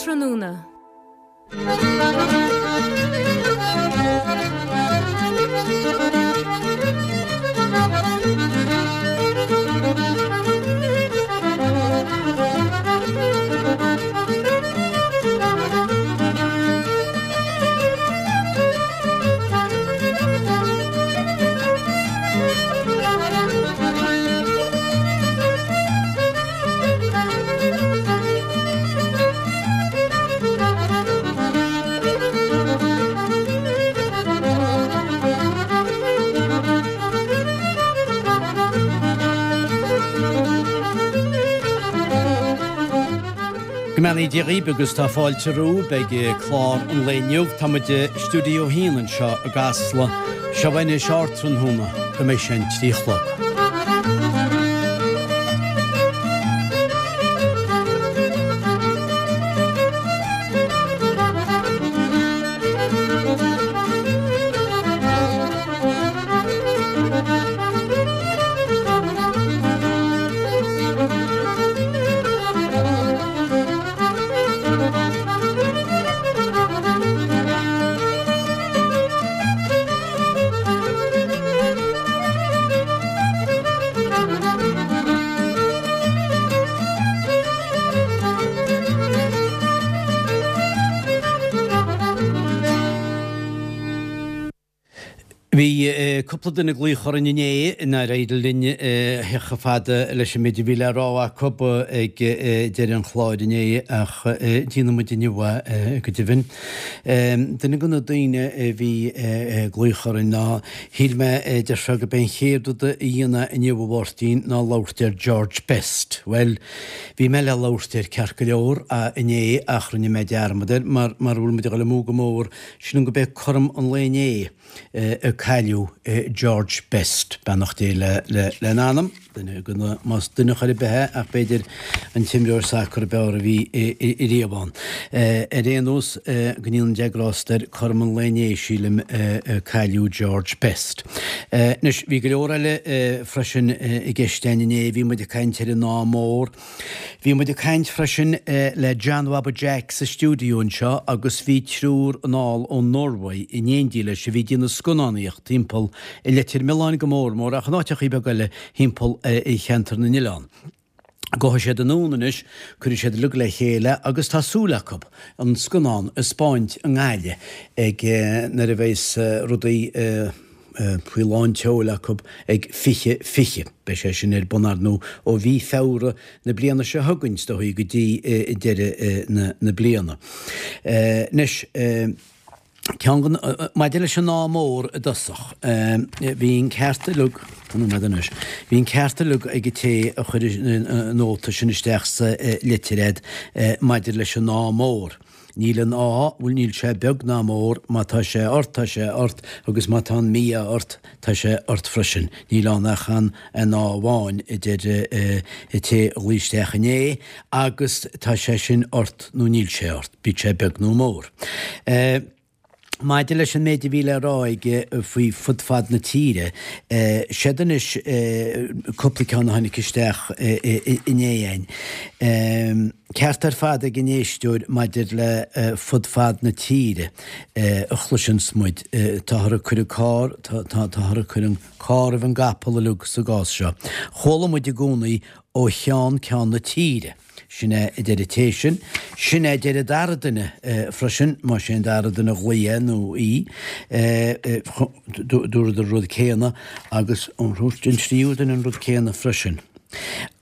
Ardtráthnóna. Go mbeannaí Dia dhaoibh agus tá fáilte romhaibh ag clár an lae inniu. Tá muid i Stiúideo 1 anseo i gCasla. Seo anois Ardtráthnóna go mbeidh sé an 3 a chlog. Bhí cúpla duine ag glaoch orainn inné nár éirigh linn theacht chomh fada leis an méid a bhí le rá acu ag deireadh an chláir inné ach déanfaidh muid inniu é go deimhin. Duine de na daoine a bhí ag glaoch orainn ná, shíl mé, deir sé, gurb é an chéad rud a dhéanfá inniu a Mháirtín ná labhairt ar George Best. Bhuel, bhí mé le labhairt air ceart go leor inné ach rinne mé dearmad air mar mar a bhfuil muid ag dul amú go mór, sílim gurb é cothrom an lae inné a cailleadh George Best, beannacht Dé lena anam, duine de na, más duine chor ar bith é ach b'fhéidir an t-imreoir sacair ab fhearr a bhí riamh ann. Ar aon nós, go ndéana Dia grásta air, cothrom an lae inné, sílim, a cailleadh George Best. Anois, bhí go leor eile freisin i gceist againn inné, bhí muid ag caint ar an Ádh Mór, Bhí muid ag caint freisin le John Bhaba Jack sa stiúideo anseo agus bhí triúr anall ón Norway in éindí leis a bhí ag déanamh scannánaíocht timpeall i Leitir Mealláin go mór mór ach in áiteachaí beaga eile thimpeall cheantar na n-oileán. Gabhfaidh siad anonn anois, cuirfidh siad uilig le chéile agus tá súil acu an scannán a 'spáint i nGaillimh ag nuair a bheas rudaí faoi lán tseoil acu ag 2020. Beidh sé sin ar bun, ar ndóigh, ó mhí Feabhra na bliana seo chugainn, is dóigh, go dtí deireadh na bliana. Anois, ceann den, maidir leis an Ádh Mór i dtosach, bhí an ceart uilig, fan nóiméad anois, bhí an ceart uilig ag an té a chuir an nóta sin isteach sa litir a'd maidir leis an Ádh Mór. Níl an ádh, bhuel níl sé beag ná mór, má tá sé ort tá sé ort agus má tá an mí-ádh ort tá sé ort freisin. Níl ann ach an ádh amháin, a deir an té a ghlaoigh isteach inné, agus tá sé sin ort nó níl sé ort, bíodh sé beag nó mór. Maidir leis an méid a bhí le rá aige faoi fud fad na tíre, seod anois cúpla ceann a tháinig isteach inné againn. Ceart ar fad ag an éisteoir maidir le fud fad na tíre a chloiseanns muid. Táthar ag cur an carr, táthar ag cur an carr roimh an gcapall uilig sa gcás seo. Chuala muid i gcónaí ó cheann ceann na tíre. Sin é a deir an té sin. Sin é a deir an dara duine freisin, más é an dara duine a ghlaoigh é nó í. Dúradar an rud céanna agus an tríú duine an rud céanna freisin.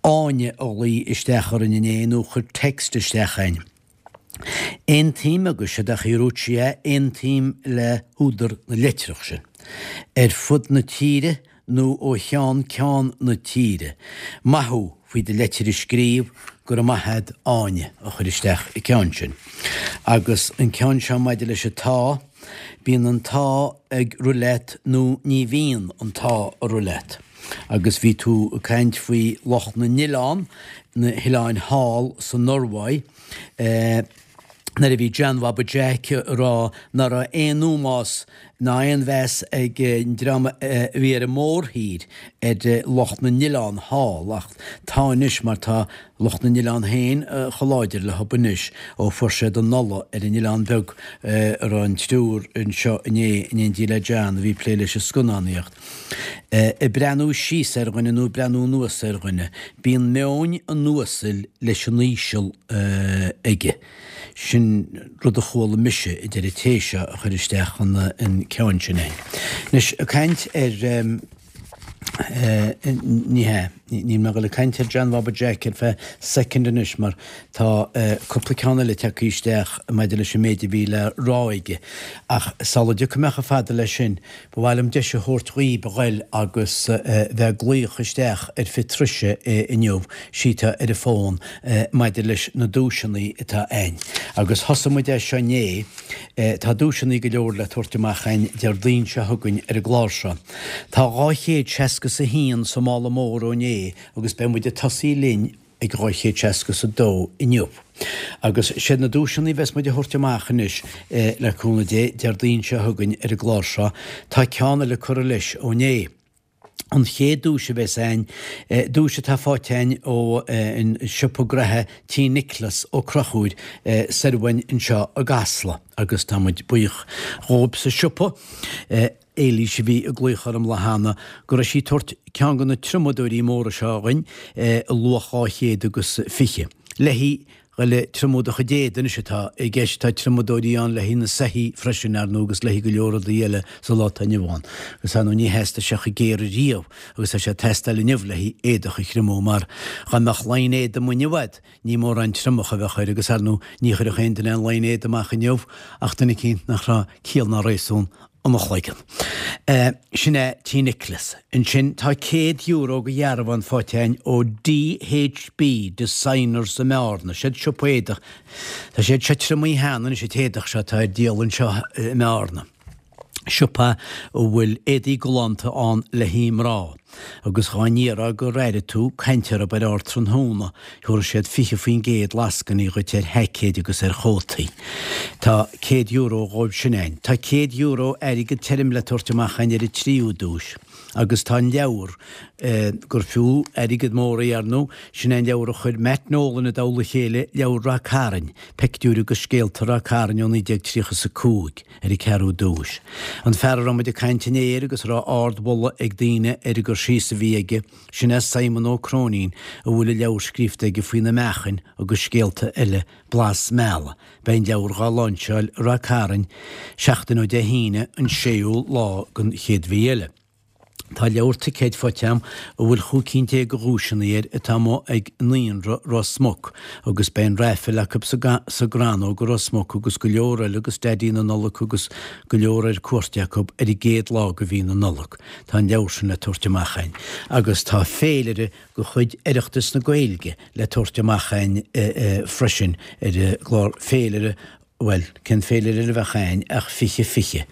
Áine a ghlaoigh isteach orainn inné nó chuir text isteach againn. Aontaím agus séard a dúirt sí é, aontaím le húdar na litreach sin. Ar fud na tíre nó ó cheann ceann na tíre. Maith thú faoi do leitir a scríobh, go raibh maith a'd Áine a chuir isteach an ceann sin. Agus an ceann seo maidir leis an t-ádh, bíonn an t-ádh ag rith leat nó ní bhíonn an t-ádh ag rith leat. Agus bhí tú ag caint faoi lucht na n-oileán, na hoileáin thall sa Norváig, nuair a bhí John Bhaba Jack ag rá nach raibh aon ómós. ná aon mheas ag an dream a bhí ar an mórthír ar lucht na n-oileán thall, ach tá anois mar tá lucht na n-oileán féin chomh láidir leo anois ó fuair siad an ola ar an oileán beag a raibh an triúr anseo inné in éindí le John a bhí ag plé leis an scannánaíocht. Ag breathnú síos ar dhuine nó ag breathnú anuas ar dhuine, bíonn meoin an uasail leis an íseal aige. Sin rud a chuala mise, a deir an té seo a chuir isteach an ceann sin é. Anois, ag caint ar, ní hea, níl mé ag dul ag caint ar John Bhaba Jack ar feadh soicind anois mar tá cúpla ceann eile tagtha isteach maidir leis an méid a bhí le rá aige. Ach sula dtiocfaidh mé chomh fada leis sin, Ba mhaith liom deis a thabhairt dhaoib a ghoil agus bheith ag glaoch isteach ar fiche truise inniu, síteá ar an bhfón, maidir leis na duaiseanna atá a'ainn. Agus thosaigh muid é seo inné, tá duaiseanna go leor le tabhairt amach a'ainn Déardaoin seo chugainn ar an gclár seo. Tá 261 sa mála mór ó inné agus beidh muid ag tosaí linn ag 262 inniu. Agus siad na duaiseanna a bheas muid a thabhairt amach anois, le cúnamh Dé, Déardaoin seo chugainn ar an gclár seo, tá ceann eile curtha leis ó inné. An chéad duais a bheas a'ainn, duais atá faighte a'ainn ó an siopa graithe Tí Nioclás Ó Conchúir soir uainn anseo i gCasla, agus tá muid buíoch dhóibh sa siopa. Éilís a bhí ag glaoch orm lá cheana go raibh sí ag tabhairt ceann de na triomadóirí móra seo dhuinn i luach 220. Léi dhul ag triomú do chuid éadaigh anois atá i gceist. Tá triomadóirí ann le haghaidh na soithí freisin, ar ndóigh, agus le haghaidh go leor rudaí eile sa lá atá inniu ann. Agus ar ndóigh ní theastaigh sé chomh géar riamh agus tá sé ag teastáil inniu le haghaidh éadach a thriomú mar dá mbeadh line éadaigh amuigh inniu a'd, Ní mórán triomach a bheadh air agus ar ndóigh ní chuirfeadh aon duine aon line éadaigh amach inniu ach duine eicínt nach raibh ciall ná réasún ina chloigeann. Sin é Tí Nioclás. Ansin tá €100 go dhearbhán faighte againn ó DHB Designers i mBearna. Siad siopa éadach. Tá siad seo triomaithe cheana anois an t-éadach seo atá ar díol anseo i mBearna. siopa a bhfuil éadaí galánta ann le haghaidh mná, agus dhá n-iarrfá gur airigh tú caint orthu ar Ardtráthnóna, thabharfadh siad 20% lascainí dhuit ar sheaicéid agus ar chótaí. Tá €100 dhóibh sin a'ainn. Tá €100 airgead tirim le tabhairt amach a'ainn ar an tríú duais, agus tá an leabhar, gur fiú airgead mór é, ar ndóigh, sin é an leabhar a chuir Matt Nolan i dtoll a chéile, Leabhar Rath Cairn, Peictiúir agus Scéalta Rath Cairn ó 1935. ar an ceathrú duais. An fear a raibh muid ag caint inné air agus a raibh ard-mholadh ag daoine ar an gcur síos a bhí aige, sin é Simon Ó Cróinín a bhfuil an leabhar scríofa aige faoi na meáchain agus scéalta eile, Blas Meala. Beidh an leabhar dhá láinseáil i Rath Cairn seachtain ó Dé hAoine an séú lá den chéad mhí eile. Tá leabhar ticéid faighte a'm a bhfuil 15 cinn de dhuaiseanna air atá amuigh ag Naíonra Ros Muc agus beidh an raifil acu sa gCrannóg i Ros Muc agus go leor eile agus Daidí na Nollag agus go leor ar cuairt acu ar an gcéad lá de mhí na Nollag. Tá an leabhar sin le tabhairt amach a'inn agus tá féilire de chuid Oireachtas na Gaeilge le tabhairt amach a'inn freisin ar an gclár féilire Bhuel, cén féilire eile a bheadh a'ainn ach 20 20.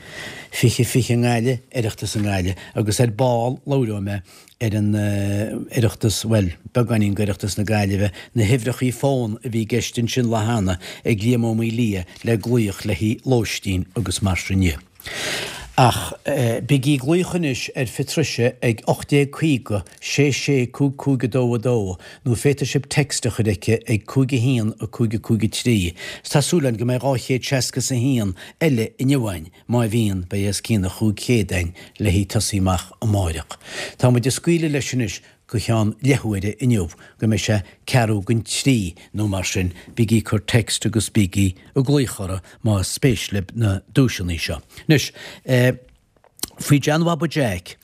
20 20 i nGaillimh, Oireachtas i nGaillimh, agus ar ball labhróidh mé ar an Oireachtas, bhuel, beagáinín d'Oireachtas na Gaillimhe, na huimhreachaí fón a bhí i gceist ansin lá cheana ag Liam Ó Maolaodha le glaoch le haghaidh lóistín agus mar sin dhe. Ach bígí ag glaoch anois ar Phatricia ag 1850 66 55 2 2 nó féadfaidh sibh text a chur aici ag 5 1 5 5 3. 'S tá súil againn go mbeidh 261 eile inniu a'ainn, má bhíonn, beidh os cionn an 500 a'ainn le haghaidh tosaí amach amáireach. Tá muid ag scaoileadh leis anois go cheann leathuaire inniu, go mbeidh sé ceathrú don trí nó mar sin, bígí ag cur text agus bígí ag glaoch orthu más spéis libh na duaiseanna seo. Anois, faoi John Bhaba Jack,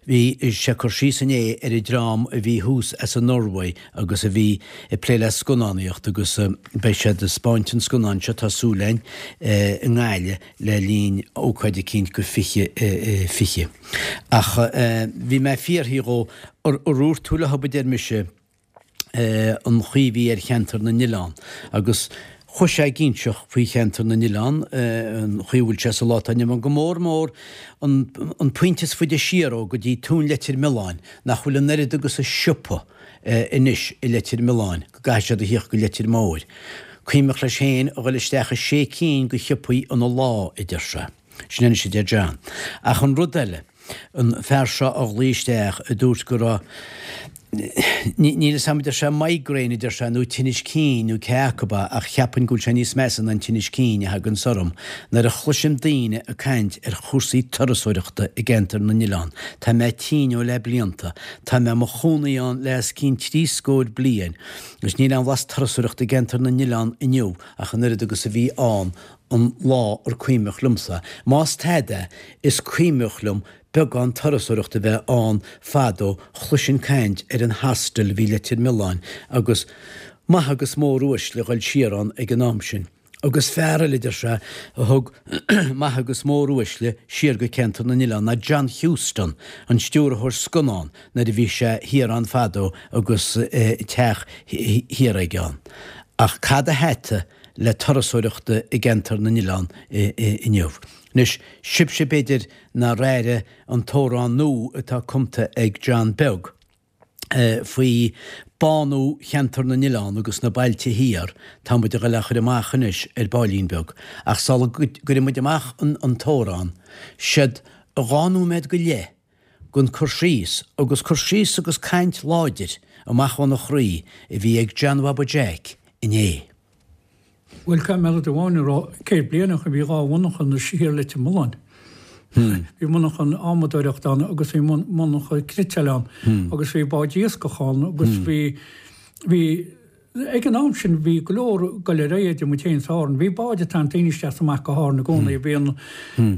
bhí sé ag cur síos inné ar an dream a bhí thuas as an Norway agus a bhí ag plé le scannánaíocht agus beidh siad ag 'spáint an scannáin seo, tá súil a'inn, i nGaillimh le linn ócáid eicínt go 20 20. Ach bhí mé ag fiafraí dhó, ar dhúirt tú leo, a deir mise, an chaoi a bhí ar cheantar na n-oileán. Agus chuaigh sé ag inseacht faoi cheantar na n-oileán, an chaoi a bhfuil sé sa lá atá inniu ann, go mór mór an an pointe is faide siar ó go dtí Tóin Leitir Mealláin, nach bhfuil an oiread agus a siopa anois i Leitir Mealláin, go gcaithfidh siad a thíocht go Leitir Móir. Cuimhneach leis féin a dhul isteach i sé cinn de shiopaí ina lá, a deir sé. Sin anois a deir John. Ach an rud eile, an fear seo a ghlaoigh isteach a dúirt go raibh, níl fhios a'm, a deir sé, migraine a deir sé, nó tinnis cinn nó cé acu é, ach cheapfainn go bhfuil sé níos measa ná an tinnis cinn a thaganns orm nuair a chloisim daoine ag caint ar chúrsaí turasóireachta i gCeantar na nOileán. Tá mé tinn ó le blianta. Tá mé i mo chónaí ann le os cionn trí scór bliain agus níl aon bhlas turasóireachta i gCeantar na nOileán inniu ach an oiread agus a bhí ann an lá ar cuimhneach liomsa. Más tada, is cuimhneach liom beagán turasóireachta a bheith ann fadó, chloisinn caint ar an hostel a bhí i Leitir Mealláin agus maithe agus mór uaisle a ghoil siar ann ag an am sin. Agus fear eile, deir sé, a thug maithe agus mór uaisle siar go Ceantar na nOileán ná John Huston, an stiúrthóir scannán, nuair a bhí sé thiar ann fadó agus teach thiar aige ann. Ach cad a thata le turasóireachta i gCeantar na nOileán inniu. Anois, sibhse b'fhéidir nár airigh an t-amhrán nua atá cumta ag John Beag faoi bánú Cheantar na nOileán agus na bailte thiar, tá muid a ghoil á chur amach anois ar baillín beag. Ach sula gcuireann muid amach an t-amhrán, siod dhá nóiméad go leith den cur síos, agus cur síos agus caint láidir amach óna chroí a bhí ag John Bhaba Jeaic inné. Bhuel, caithfidh mé rud amháin a rá, 100 bliain ó shin bhí dhá mhonarcha thiar i Leitir Mealláin. Bhí monarcha adhmadóireachta ann agus bhí monarcha cniotáil ann agus bhí báid iascach ann agus bhí, bhí, Ag an am sin bhí go leor ag goil ar aghaidh idir muid féin is Árainn. Bhí báid ag tarraingt daoine isteach is amach go hÁrainn i gcónaí. Bhí an,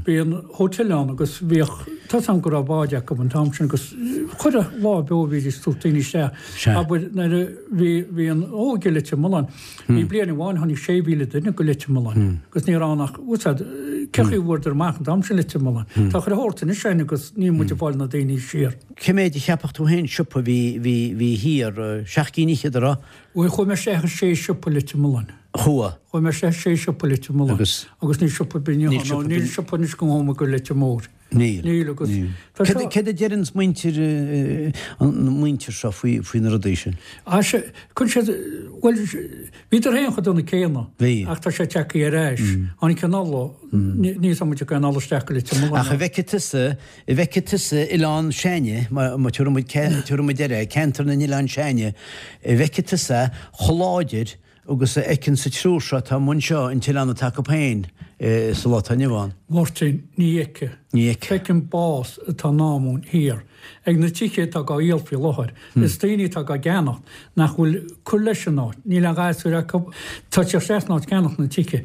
bhí an hotel ann agus bhíodh, tá 's agam go raibh báid acu an t-am sin agus chuile lá beo bhídís ag tabhairt daoine isteach. Abair nuair a bhí, bhí an óige i Leitir Mealláin, bhí bliain amháin tháinig 6,000 duine go Leitir Mealláin agus ní raibh ann ach, bhfuil 's a'd, cé chaoi a bhfuaireadar amach an t-am sin Leitir Mealláin. Tá chuile shórt anois againn agus níl muid ag fáil na daoine siar. Cé méid a cheapfadh tú féin siopa a bhí, bhí, bhí thiar, seacht gcinn fhichead, a raibh? Bhuel, chuaigh mé isteach i sé siopa i Leitir Mealláin. Chuaigh? Chuaigh mé isteach i sé siopa i Leitir Mealláin. Agus? Agus níl siopa ar bith, níl siopa, níl siopa anois go ngabhfaidh mé go Leitir Móir. Níl. Níl agus Níl. tá Céard, seo. céard a deireann muintir, an muintir seo faoi, faoi na rudaí sin? Ah, sea, chun siad, bhuel, bhíodar féin chomh dona céanna. Bhí. Ach tá sé tagtha ar ais. Tháinig an ola, níl 's agam muid ag an ola isteach go Leitir Mealláin. Ach an bhfeicfidh tusa, An bhfeicfidh tusa Oileán s'againne, má tabharfaidh muid air é, ceantar na nOileán s'againne, an bhfeicfidh tusa chomh láidir agus a fheiceann an triúr seo atá amuigh anseo an t-oileán atá acu féin sa lá atá inniu ann? Mháirtín, Ní fheicfidh. Ní fheicfidh. Feicim bás atá i ndán dúinn thiar. Ag na tithe atá dhá dhíol faoi láthair. Is daoine atá dhá gceannacht nach bhfuil cur leis an áit. Níl aon ghasúir acu. Tá siad isteach san áit ceannacht na tithe.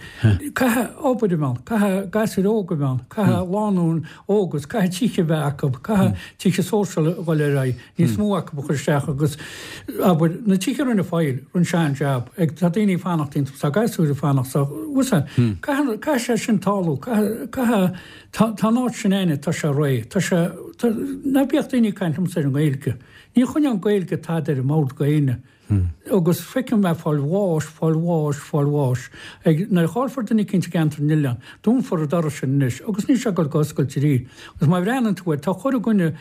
Caithfidh obair a bheith ann. Caithfidh gasúir óga a bheith ann. Caithfidh lánúin óg agus caithfidh tithe a bheith acu. Caithfidh tithe sóisialta a dhul ar aghaidh. Níos mó acu a chur isteach agus, abair, na tithe a rinne Foyle, rinne sé an-jab. Ag, tá daoine ag fanacht iontu, tá gasúir ag fanacht sa, bhfuil 's a'd. Caithfidh, caithfidh sé sin tarlú. Caithfidh, caithfidh, tá, tá an áit sin a'inne, tá sé réidh. Tá sé, tá, ná bíodh daoine ag caint liomsa ar an nGaeilge. Ní choinneoidh an Ghaeilge tada ar an mbord go éinne. Agus feicim é fáil bháis, fáil bháis, fáil bháis. Ag, nuair a chaillfear duine eicínt i gceantar na n-oileán, dúnfar an doras sin anois agus níl sé ag dul go oscailt arís. Agus má bhreathnaíonn tú air, tá chuile dhuine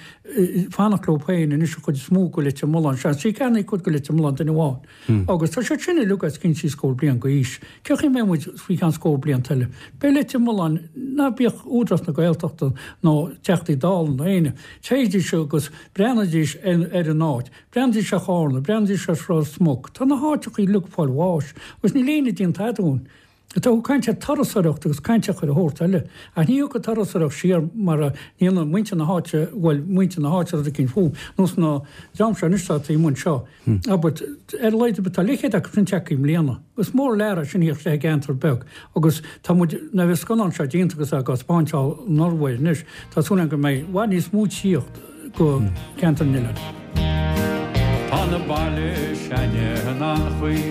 fanacht leo féin anois an chuid is mó go Leitir Mealláin. Seans, sí ceannaigh cuid go Leitir Mealláin duine amháin. Agus tá siad sin uilig os cionn trí scór bliain go aois. Cé chaoi mbeidh muid faoi cheann scór blianta eile? Beidh Leitir Mealláin, ná bíodh Údarás na Gaeltachta nó Teachtaí Dála nó éinne, téidís agus breathnaídís ar an áit. Breathnaídís ar Chárna, breathnaídís ar Ros Muc. Tá na háiteacha uilig ag fáil bháis agus níl éinne ag déanamh tada dúinn. Tá tú ag caint ar turasóireacht agus caint ar chuile shórt eile. Ach ní thiocfaidh turasóireacht siar mara ndéanann muintir na háite, bhuel, muintir na háite rud eicínt fúm, nós na dream seo anois atá taobh amuigh anseo. Abair, ar a laghad ar bith tá leithchéad acu sin tagtha i mbliana. Is mór an lear é sin a thíocht isteach i gceantar beag agus tá muid, nuair a bheidh an scannán seo déanta agus á thaispeáint i Norway anois, tá súil agam go mbeidh i bhfad níos mó tíocht. go Ceantar na nOileán. Tá na baile s'ainne in an-chaoi,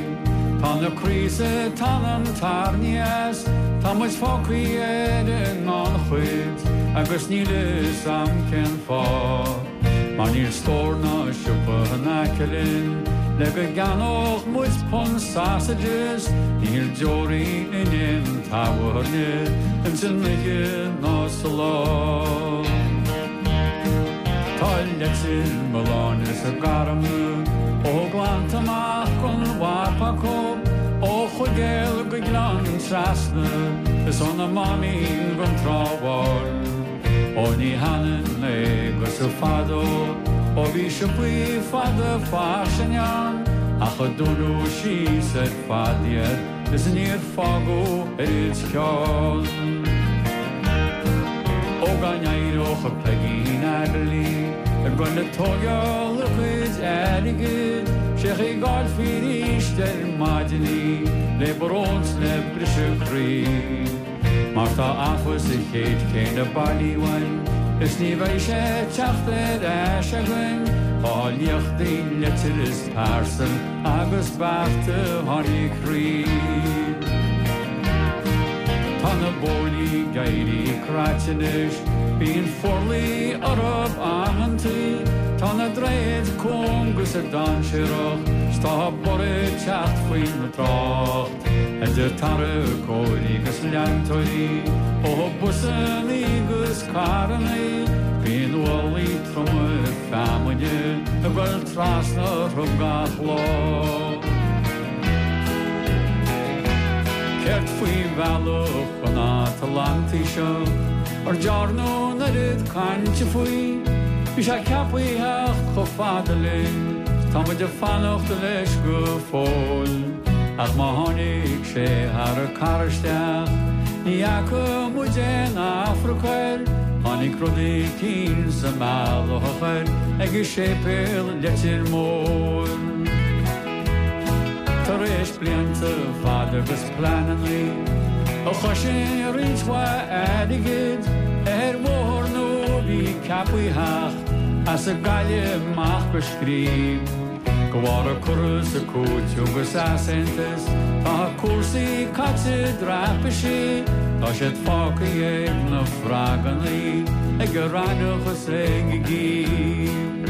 tá na craosa tá an tairní as, tá muid fágthaí ar an ngannchuid agus níl fhios a'm cén fáth. Mar níl stór ná siopa in aice linn le go gceannódh muid punt sausages, níl deoraí in aon tábhairne ins an oíche ná sa lá. Tá Leitir Mealláin is a Garmna ó Ghleannta amach gon mhapa acu, ó Chuigéal go Gleann Trasna. Is óna Máimín gon Trá Bháin. Ó ní hionann é agus fadó ó bhí siopaí fada fairsing ann ach a dúnadh síos ar fad iad is níor fágadh oiread ceann. Ó dá n-éireodh Peigín Adderley ag dul ag tóigeáil a cuid airgid sé chaoi go bhfáilfí arís ar maidin í le brón 's le briseadh croí. Mar tá afa sa chéad chéanna bailí uainn is ní bheidh sé ag teacht ar ais againn Tá liachtaí leitir is pearsal agus bearta tháinig croí. Tá na bóithrí ag éirí craite anois, bíonn forluí orthu amantaí, tá na droichid cúng is dainséarach 's tá borradh ag teacht faoin dtrácht. Idir tarracóirí 'gus leantóirí, ó busannaí 'gus carrannaí, bíonn ualaí troma feamainne ag goil trasna orthu gach lá. Céard faoi bhealach an Atlantaigh seo, ar dearnadh an oiread cainte faoi? Bhí sé ceaptha a theacht chomh fada linn, 's tá muid ag fanacht leis go fóill. Ach má tháinig sé thar an carr isteach, ní fhaca muid aon Afrac air, tháinig rud eicínt sa mbealach air ag an séipéal Leitir Móir. Tar éis blianta fada agus pleanannaí a chosain roinnt mhaith airgid ar bhóthar nua a bhí ceaptha a theacht as an Gaillimh amach go Scríb. De bharr an cur is an cúiteamh agus easaontas tá cúrsaí caite i dtraipisí, tá siad fágtha ag na froggannaí, ag an raithneach is ag an gcím.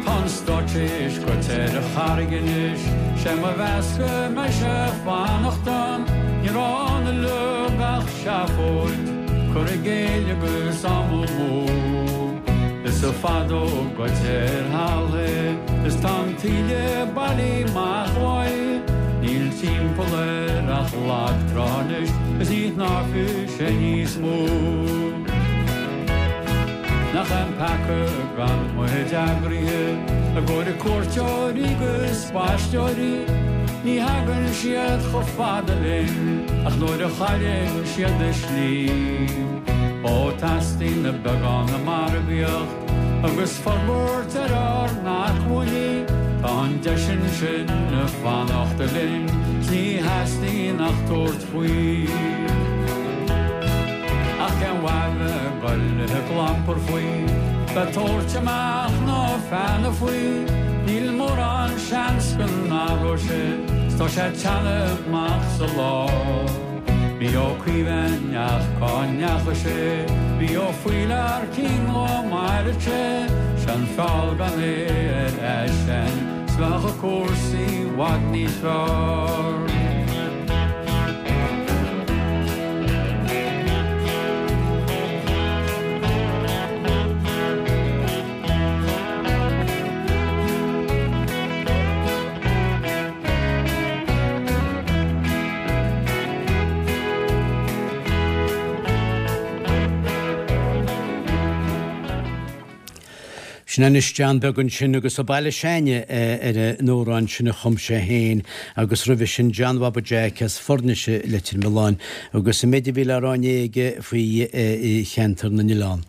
Tá an stáitse théis goit ar an charraig anois, sé mo mheas go mbeidh sé ag fanacht ann, ní raibh ann uilig ach seafóid, cur i gcéill agus am amú. Is fad ó goit ar thalamh é is tá an taoille bailithe amach uaidh, níl timpeall air ach lag trá anois is ní shnámhfaidh sé níos mó. Nach é an peaca gan muid eagraithe i gcomhair cuairteoirí 'gus spaisteoirí, ní thagann siad chomh fada linn ach nuair a chailleann siad a slí. Ó teastaíonn beagán margaíocht agus forbairt ar ár n-acmhainní, tá an deis ansin ag fanacht linn 's ní theastaíonn ach tabhairt faoi. Ach cén mhaith bheith ag goil ag clampar faoi, bheith ag tabhairt amach na feanna faoi, níl mórán seans go n-athróidh sé 's tá sé ag teannadh amach sa lá. Bhí Ó Caoimh ach cá ndeachaigh sé? Bhí Ó Faoilearcín dhá maireadh sé, 'Sé an feall gan é ar eisean 's bheadh cúrsaí i bhfad níos fearr. Sin anois John Beag ansin agus An Baile S'Ainne ar an amhrán sin a chum sé féin agus roimhe sin John Bhaba Jeaic as Foirnis i Leitir Mealláin agus an méid a bhí le rá inné aige faoi cheantar na n-oileán.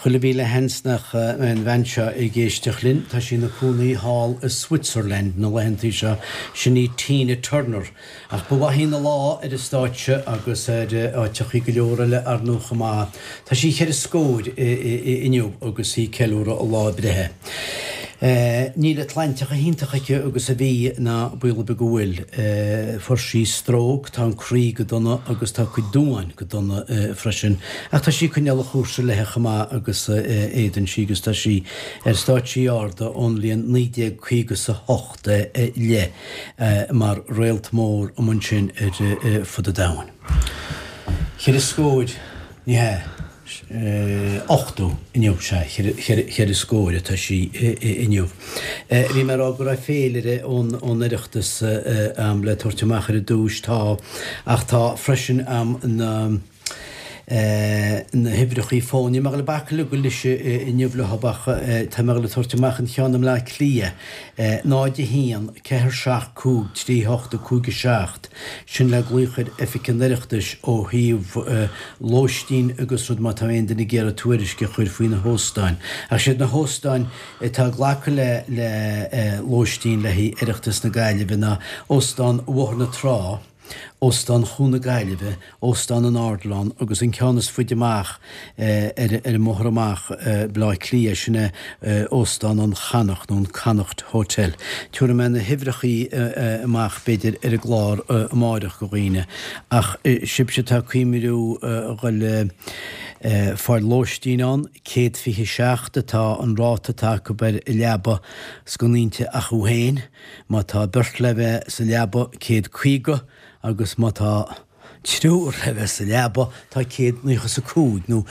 Chuile mhíle sheans nach mbeidh an bhean seo ag éisteacht linn, tá sí ina cónaí thall i Switzerland na laethantaí seo, sin í Tina Turner. Ach ba mhaith ina lá ar an stáitse agus ar áiteachaí go leor eile ar ndóigh chomh maith. Tá sí cheithre scór inniu agus í ag ceiliúradh a lá breithe. Níl an tsláinte chomh hiontach aici agus a bhí, ná baol ar bith go bhfuil. Fuair sí stróc, tá an croí go dona agus tá a cuid duáin go dona freisin. Ach tá sí ag coinneáil an chúrsa léithe chomh maith agus a fhéadann sí agus tá sí ar stáitsí arda ón bhliain 1958 i leith mar réalt mór amuigh ansin ar fud an domhain. Cheithre scór, ní hea? 80 inniu, sea, cheithre scór atá sí inniu. Bhí mé ag rá go raibh féilire ón Oireachtas a'm le tabhairt amach ar dtúis, tá, ach tá freisin a'm na na huimhreachaí fóin. Níl mé ag dul ag bacadh le goil leis inniu leo ach tá mé ag dul ag tabhairt amach an cheann i mBleá Cliath, 0 1 4 7 5 3 8 5 7, sin le glaoch ar Oifig an Oireachtais ó thaobh lóistín agus rud má tá aon duine ag iarraidh tuairisc a chur faoi na hóstáin. Ach siad na hóstáin atá ag glacadh le le lóistín le haghaidh Oireachtas na Gaillimhe ná Óstán Bhóthar na Trá, Óstán Chuan na Gaillimhe, Óstán an Ardilaun agus an ceann is faide amach ar an mbóthar amach Baile Átha Cliath, sin é Óstán an Chonnacht nó an Connacht Hotel. Tabharfaidh mé na huimhreachaí amach b'fhéidir ar an gclár amáireach go dhaoine ach sibhse atá ag cuimhniú a dhul ag fáil lóistín ann, 127 atá an ráta atá acu ar leaba sconainte acu féin. Má tá beirt le bheith sa leaba, 150, agus má tá triúr le bheith sa leaba, tá 195, nó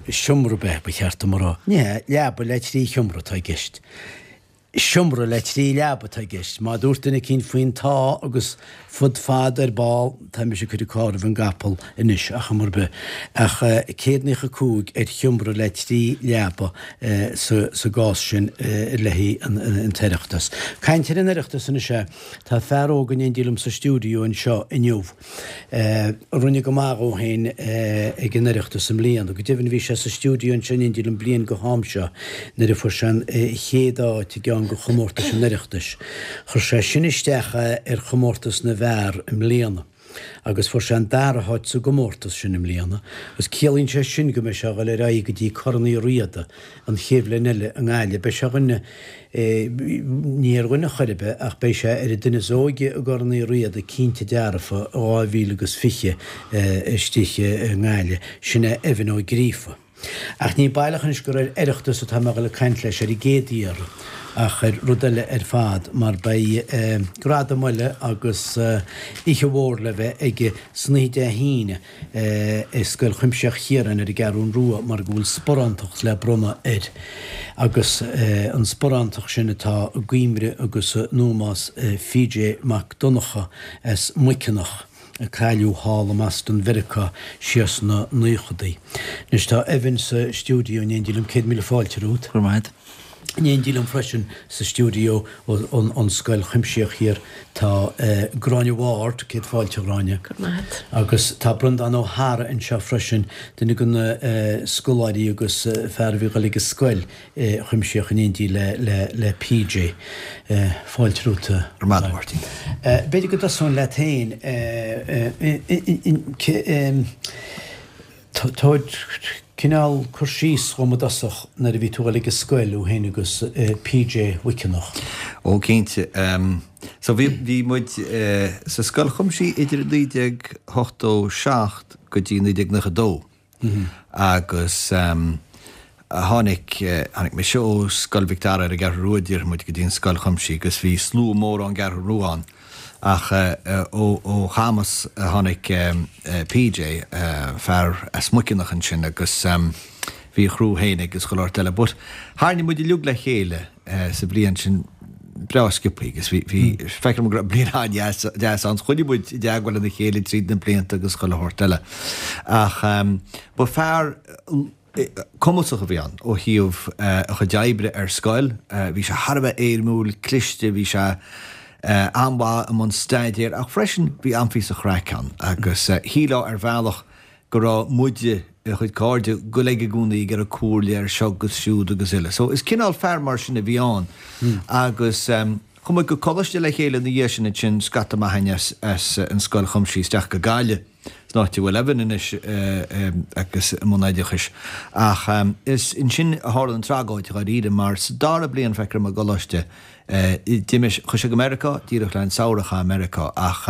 seomra ab ea, ba cheart dom a rá. Ní hea, leaba le trí sheomra atá i gceist. Seomra le trí leaba atá i gceist. Má dúirt duine eicínt faoin tá agus fud fad ar ball, tá mise ag cur an carr roimh an gcapall anois, ach chuma ar bith. Ach 195 ar sheomra le trí leaba sa gcás sin le haghaidh an tOireachtas. Caint ar an Oireachtas anois é, tá fear óg in éindí liom sa stiúideo anseo inniu a rinne go maith dhó féin ag an Oireachtas i mbliana. Go deimhin bhí sé sa stiúideo anseo in éindí liom bliain go ham seo nuair a fuair sé an chéad áit i gceann de chomórtais an Oireachtais. Chuir sé sin isteach ar chomórtas na bhfear i mbliana agus fuair sé an dara háit sa gcomórtas sin i mbliana agus ciallaíonn sé sin go mbeidh sé a dhul ar aghaidh go dtí Corn Uí Riada an chéad bhliain eile i nGaillimh. Beidh sé ar dhuine, ní ar dhuine chor ar bith ach beidh sé ar an duine is óige i gCorn Uí Riada cinnte dearfa i 2020 istigh i nGaillimh. Sin é Evan Ó Gríofa. Ach ní baileach anois gur ar Oireachtas atá mé a dhul ag caint leis ar an gcéad iarraidh ach ar rud eile ar fad mar beidh gradam eile agus oíche mhór le bheith aige san oíche Dé hAoine i Scoil Chuimsitheach Chiaráin ar an gCeathrún Rua mar go bhfuil sparántacht le bronnadh air agus an sparántacht sin atá i gcuimhne agus in ómós PJ Mac Donncha as Muiceanach. a cailleadh thall i mBoston Mheiriceá siar sna naochadaí. Anois tá Evan sa stiúideo in éindí liom, 100,000 fáilte romhat. Go raibh maith agat. In éindí liom freisin sa stiúideo ón Scoil Chuimsitheach Thiar tá Gráinne Ward, céad fáilte a Ghráinne. Go raibh maith agat. Agus tá Breandán Ó hEára anseo freisin, duine de na scoláirí agus fear a bhí ag dul ag an scoil Chuimsitheach in éindí le PJ. Fáilte romhat. Go raibh maith agat, a Mháirtín. B'fhéidir go dtosóinn leat féin. Tabhair cineál cur síos dhom i dtosach nuair a bhí tú ag dul ag an scoil, thú féin agus PJ Mhuiceanach. Ó, cinnte. So bhí muid sa Scoil Chuimsitheach idir 1987 go dtí 1992. Agus tháinig, tháinig mise ó Scoil Mhic Dara ar an gCeathrú Rua, déarfaidh muid, go dtí an Scoil Chuimsitheach agus bhí slua mór ón gCeathrú Rua ann. Ach ó Chamus a tháinig PJ, fear as Muiceanach ansin agus bhí a chriú féin aige agus chuile shórt eile. But tharraing muid uilig le chéile. sa bhliain sin breá sciobthaí agus bhí, bhí, feictear dom go raibh bliain an-deas, deas ann. Choinnigh muid i dteagmháil lena chéile tríd na blianta agus chuile shórt eile. Ach ba fear cumasach a bhí ann ó thaobh a chuid oibre ar scoil. Bhí sé thar a bheith éirimiúil, cliste, bhí sé an-mhaith i mbun staidéir ach freisin bhí an-phíosa chraic ann agus shílfeá ar bhealach go raibh muide, a chuid cairde, ag goil aige i gcónaí ag iarraidh comhairle ar seo agus siúd agus uile. So is cineál fear mar sin a bhí ann. Agus chuaigh muid go coláiste le chéile ina dhiaidh sin ansin, scata maith againn as as an Scoil Chuimsitheach isteach go Gaillimh, san áit a bhfuil Evan anois agus i mbun oideachais. Ach is ansin a tharla an tragóid dháiríre mar sa dara bliain feictear dom i gcoláiste, D'imigh, chuaigh sé go Meiriceá, díreach le an samhradh a chaitheamh i Meiriceá ach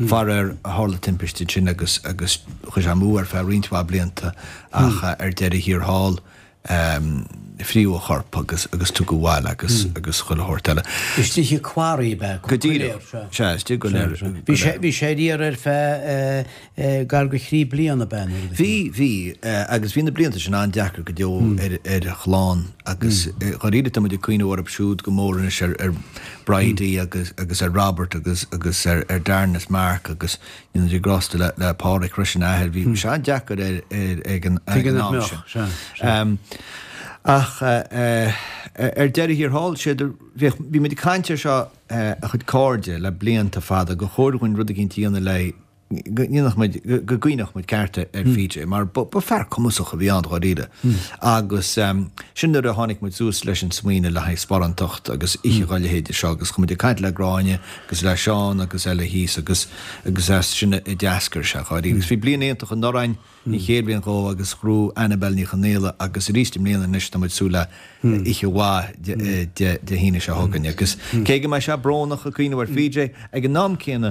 faraor tharla timpiste ansin agus agus chuaigh sé amú ar feadh roinnt mhaith blianta ach ar deireadh thiar thall. Fríodh a chorp agus agus tugadh abhaile agus agus chuile shórt eile. Istigh i quarry ab ea? Go díreach. Sea, istigh go léir. Bhí sé bhí sé ar iarraidh ar feadh gar go thrí bliana ab ea nuair a bhí? Bhí, bhí agus bhí na blianta sin an-deacair go deo ar ar a chlann agus dháiríre tá muid ag cuimhneamh orthu siúd go mór anois ar ar Bridie agus agus ar Robert agus agus ar ar Darren is Mark agus Dé a ghrásta le le Pádraic freisin a athair. Bhí sé an-deacair air air ag an ag an am sin. Ach ar deireadh thiar thall, sé do bhíodh bhí muid ag caint air seo a chuid cairde le blianta fada gur chóir dhúinn rud eicínt a dhéanamh le go ndéanfadh muid go gcuimhneodh muid ceart ar PJ mar ba ba fear cumasach a bhí ann dháiríre. Agus sin nuair a tháinig muid suas leis an smaoineamh le haghaidh sparántacht agus oíche dhá leithéide seo agus chuaigh muid ag caint le Gráinne agus le Seán agus eile thíos agus agus as sin a d'eascair sé dháiríre. Agus bhí bliain iontach anuraidh againn, an chéad bhliain dhó agus ghnóthaigh Annabelle Ní Chonaola agus arís i mbliana anois tá muid ag súil le oíche mhaith Dé hAoine seo chugainn. Agus cé go mbeidh sé brónach ag cuimhneamh ar PJ, ag an am céanna,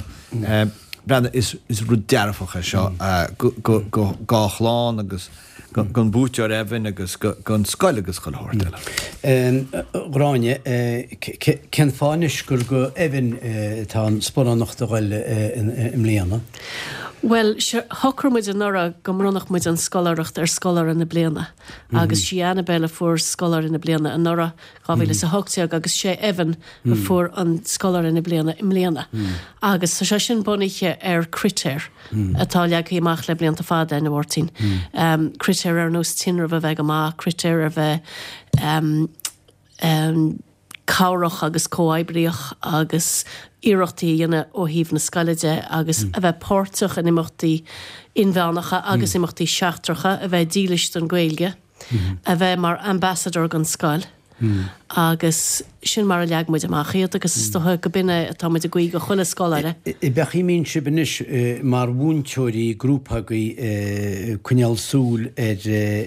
breathnaigh, is rud dearfach é seo go dá chlann agus don bhuaiteoir Evan agus don scoil agus chuile shórt eile. Gráinne, cén fáth anois gur go Evan atá an sparánacht a ghoil i mbliana? Bhuel, shocraigh muid anuraidh go mbronnfadh muid an scoláireacht ar scoláire na bliana agus sí Annabelle a fuair scoláire na bliana anuraidh, 2018, agus sé Evan a fuair an scoláire na bliana i mbliana. Agus tá sé sin bunaithe ar critéir. atá leagtha amach le blianta fada, a Mháirtín. Critéir ar nós tinreamh a bheith go maith, critéir ar bheith cabhrach agus comhoibríoch agus iarrachtaí a dhéanamh ó thaobh na scoile de agus a bheith páirteach in imeachtaí inmheánacha agus imeachtaí seachtracha, a bheith dílis don Ghaeilge. a bheith mar ambassador don scoil agus sin mar a leag muid amach iad agus is dócha go b'in é atá muid ag guí do chuile scoláire. Ab é an chaoi a mbíonn sibh anois mar mhúinteoirí, grúpa agaibh ag coinneáil súil ar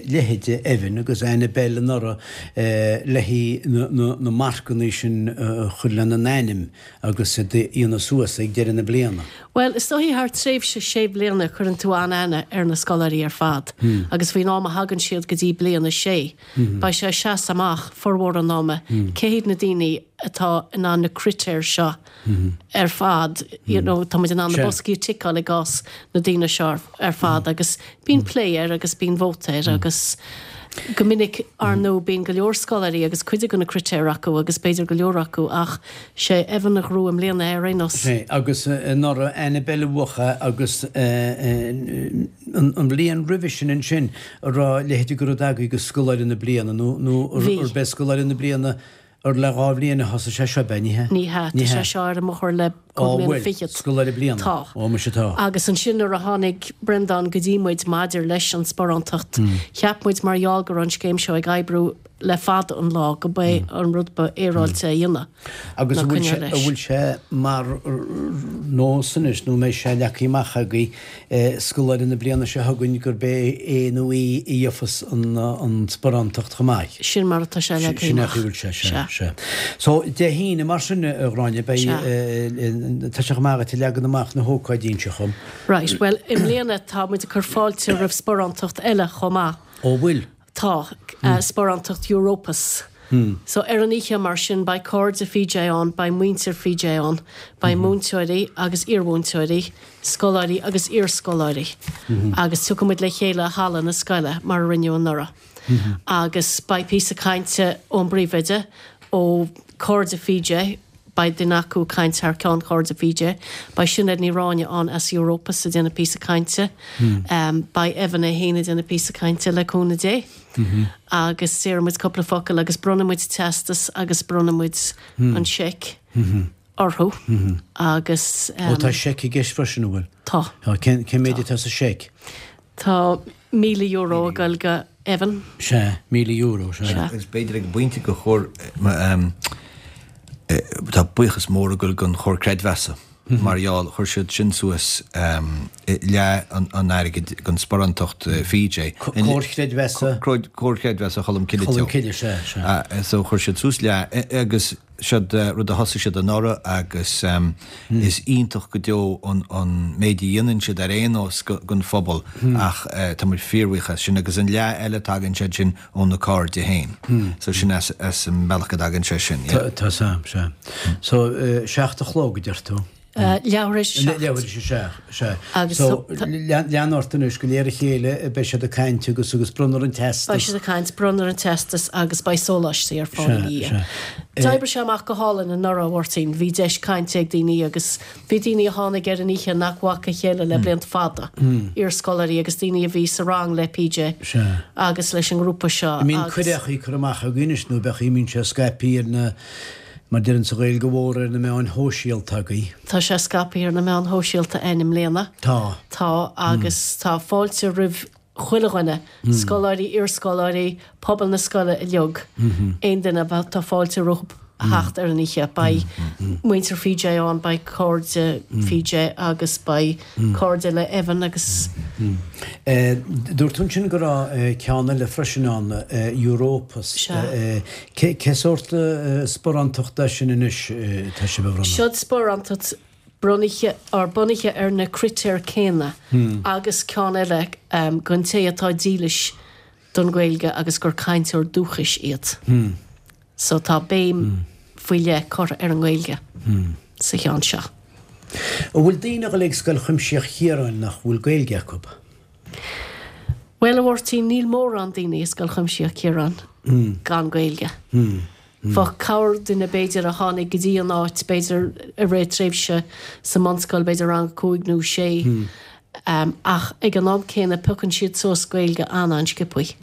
leithéide Evan agus Annabelle anuraidh le haghaidh na marcanna sin a chur lena n-ainm agus iad a dhéanamh suas ag deireadh na bliana? Bhuel, is dóichí thar tréimhse sé bliana cuireann tú an-aithne ar na scoláirí ar fad agus faoin am a thagann siad go dtí bliain a sé, beidh sé ag seasamh amach formhór an ama cé hiad na daoine atá in ann na critéir seo ar fad, you know, tá muid in ann na boscaí a ticeáil i gcás na daoine seo ar fad agus bíonn plé air agus bíonn vóta air agus go minic, ar ndóigh, bíonn go leor scoláirí agus cuid de na critéir acu agus b'fhéidir go leor acu ach sé Evan a ghnóthaigh i mbliana é ar aon nós. Sé, agus anuraidh Annabelle a bhuaigh é agus an bhliain roimhe sin ansin an raibh a leithéid de rud agaibh go Scoláire na Bliana nó nó arb é Scoláire na Bliana ar le dhá bhliain a thosaigh sé seo, ab ea? Ní hea? Ní hea, tá sé seo ar an mbóthar le cúig mbliana fichead. Scoláire Bliana. Tá. Ó, muise tá. Agus ansin nuair a tháinig Breandán go dtí muid maidir leis an sparántacht, cheap muid mar gheall go raibh an scéim seo ag oibriú le fada an lá go b'é an rud ba fhéaráilte a dhéanamh Agus an bhfuil sé, an bhfuil sé mar nós anois nó an mbeidh sé leagtha amach agaibh scoláire na bliana seo chugainn gurb é é nó í a gheofas an sparántacht chomh maith. Sin mar atá sé leagtha amach. Sin é a bhfuil sé, sea, sea. So, Dé hAoine mar sin, a Ghráinne, beidh, tá sé chomh maith agat ag leagan amach na hócáidí anseo chugam. Right, bhuel, i mbliana tá muid ag cur fáilte roimh sparántacht eile chomh maith. Ó, bhfuil? Tá, sparántacht Europus. So ar an oíche mar sin beidh cairde PJ ann, beidh muintir PJ ann, beidh múinteoirí agus iarmhúinteoirí, scoláirí agus iarscoláirí agus tiocfaidh muid le chéile i halla na scoile mar a rinneadh anuraidh. Agus beidh píosa cainte ón bpríomhoide, ó cairde PJ, Beidh duine acu ag caint thar ceann Chairde PJ. Beidh Sinéad Ní Ráinne ann as Europus ag déanamh píosa cainte. Beidh Evan é féin ag déanamh píosa cainte le cúnamh Dé. Agus déarfaidh muid cúpla focal agus bronnfaidh muid teastas agus bronnfaidh muid an seic orthu agus. Ó tá seic i gceist freisin, an bhfuil? Tá. Cén méid atá sa seic? Tá €1,000 ag goil go Evan. Sea, €1,000, sea. Sea. Agus b'fhéidir ag an bpointe gur chóir, tá buíochas mór ag goil don Chomhar Creidmheasa mar gheall, chuir siad sin suas leath an airgid don sparántacht PJ. Comhar Creidmheasa? Comhar Creidmheasa Cholm Cille Teo. Cholm Cille, sea, sea. So chuir siad suas leath agus. Siod rud a thosaigh siad anuraidh agus is iontach go deo an méid a dhéanann siad ar aon nós don phobal ach tá muid fíorbhuíoch as sin agus an leath eile tagann siad sin ó na cairde féin. So sin as an mbealach go dtagann sé sin, yeah. Tá 's a'm, sea. So, 7 a chlog a deir tú? Leathuair théis a 7. Leathuair théis a 7, sea. Agus So, lean ort anois, go léir a chéile, beidh siad ag caint agus agus bronnfar an teastas. Beidh siad ag caint, bronnfar an teastas agus beidh sóláistí ar fáil ina dhiaidh. D'oibrigh sé amach go hálainn anuraidh, a Mháirtín. Bhí deis cainte ag daoine agus bhí daoine a tháinig ar an oíche nach bhfaca a chéile le blianta fada, iarscoláirí agus daoine a bhí sa rang le PJ agus leis an ngrúpa seo agus. An mbíonn cuireadh curtha amach agaibh anois nó beidh, mbíonn sé scaipthe ar na Mar deireann sa Ghaeilge Mhór ar na meáin shóisialta agaibh. Tá sé scaipthe ar na meáin shóisialta againn i mbliana. Tá. Tá agus tá fáilte roimh chuile dhuine, scoláirí, iarscoláirí, pobal na scoile uilig, aon duine, tá fáilte rompu theacht ar an oíche. Beidh muintir PJ ann, beidh cairde PJ agus beidh cairde le Evan agus. Dúirt tú ansin go raibh ceann eile freisin ann, Europus. Sea. Cé sórt sparántacht é sin anois atá sibh a bhronnadh? Siod sparántacht bunaithe or bunaithe ar na critéir céanna agus ceann eile don té atá dílis don Ghaeilge agus gur cainteoir dúchais iad. So tá béim faoi leith curtha ar an nGaeilge sa cheann seo. An bhfuil daoine ag dul ag Scoil Chuimsitheach Chiaráin nach bhfuil Gaeilge acu? Bhuel, a Mháirtín, níl mórán daoine i Scoil Chuimsitheach Chiaráin gan Gaeilge. Bheadh corrdhuine, b'fhéidir, a tháinig go dtí an áit, b'fhéidir, i rith tréimhse sa mbunscoil, b'fhéidir rang a cúig nó sé, ach ag an am céanna piocann siad suas Gaeilge an-an-sciobthaí.